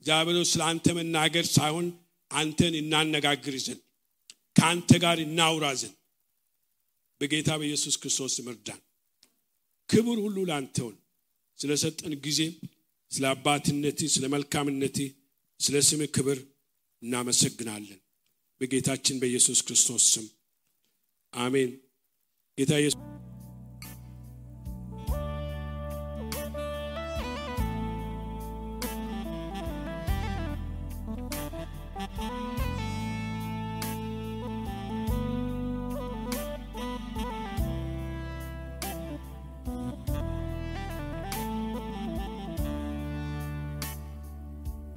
እግዚአብሔር ስላንተ መናገር ሳይሆን አንተን እናነጋግር ዘንድ ካንተ ጋር እናውራ ዘንድ በጌታ በኢየሱስ ክርስቶስ እርዳን። ክብር ሁሉ ላንተ ይሁን። ስለሰጠን ጊዜ፣ ስለ አባትነትህ፣ ስለ መልካምነትህ፣ ስለ ስምህ ክብር እናመሰግናለን በጌታችን በኢየሱስ ክርስቶስ ስም አሜን። ጌታ ኢየሱስ